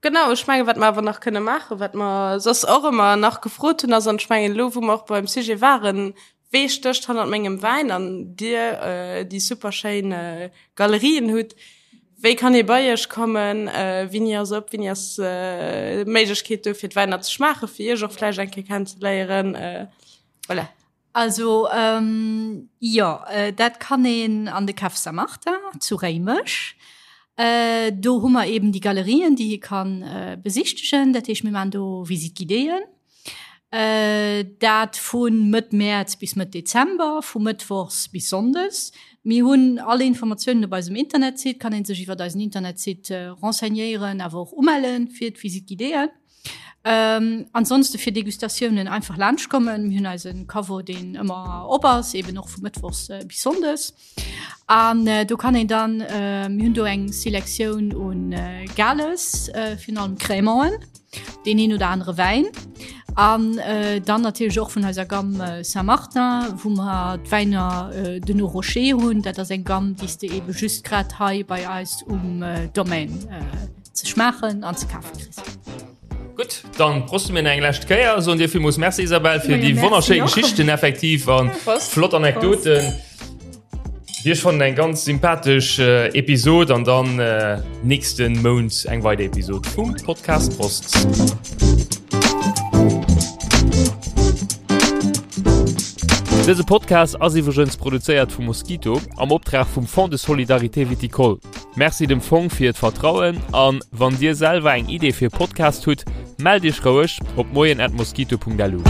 Speaker 2: Genau, ech menge wat mer awer nach kënne maachen, wat mer soss och ëmmer nach gefrot hunn, ass, an ech mengen elo wou mer och beim Sujet waren, wee stécht hannert mengem Wäin an Dir äh, déi super schéin äh, Galerien hutt, wéi kann ee bei Iech kommen, äh, wéini ass op, wéini ass äh, d'Méiglechkeet do fir d'Wäiner ze schmaachen, fir Iech och vläicht eng Kéier kennenzeléieren, äh, voilà.
Speaker 3: Also jo, dat kann een an de Café Saint-Martin zu Réimech. Do hu mer eben déi Galerien, déi ee ka besichtegen. Dat heescht, mir maachen do Visite guidéeën. Dat vu Mëtt Mäerz bis Mëtt Dezember, vu mëttwochs bis sonndes. Mir hunn all Informatiounen op eisem Internetsite, kann ee sech iwwer eisen Internetsite renseignéieren, awer och umelle fir d'Visite guidéeën. Ähm, ansonsten fir Degustatiounen einfach laanscht kommen. Mir hunn eisen Caveau, deen ëmmer op ass, eben och vu mëttwochs äh, bis sonndes. An äh, do kann een dann äh, mir hunn do eng Selektioun un äh, Gales, äh, virun allem Crémanten, deen een oder anere Wäin. An äh, dann natierlech och vun eiser Gamme äh, Saint-Martin, wou mer d'Wäiner äh, de nos Rochers hunn. Dat ass eng Gamme, déi s de ebe just grad hei bei eis um äh, Domaine äh, ze schmaachen an ze kafe kriss.
Speaker 1: Gutt, dann proste mir eng lescht Kéier, soen dir villmools Merci Isabelle fir déi wonnerschéi Geschichten effektiv an flott Anekdoten. Dir schonn eng ganz sympathesch äh, Episod an dann äh, nächsten Mount eng weider Episod vum Podcast Prost. Dëse Podcast ass iwwregens produzéiert vum Mosquito am Optrag vum Fonds de Solidarité Viticole. Merci dem Fong fir d'Vertrauen an wann dir selwer eng Idee fir e Podcast hutt, mellt iech roueg op moien@mosquito.lu.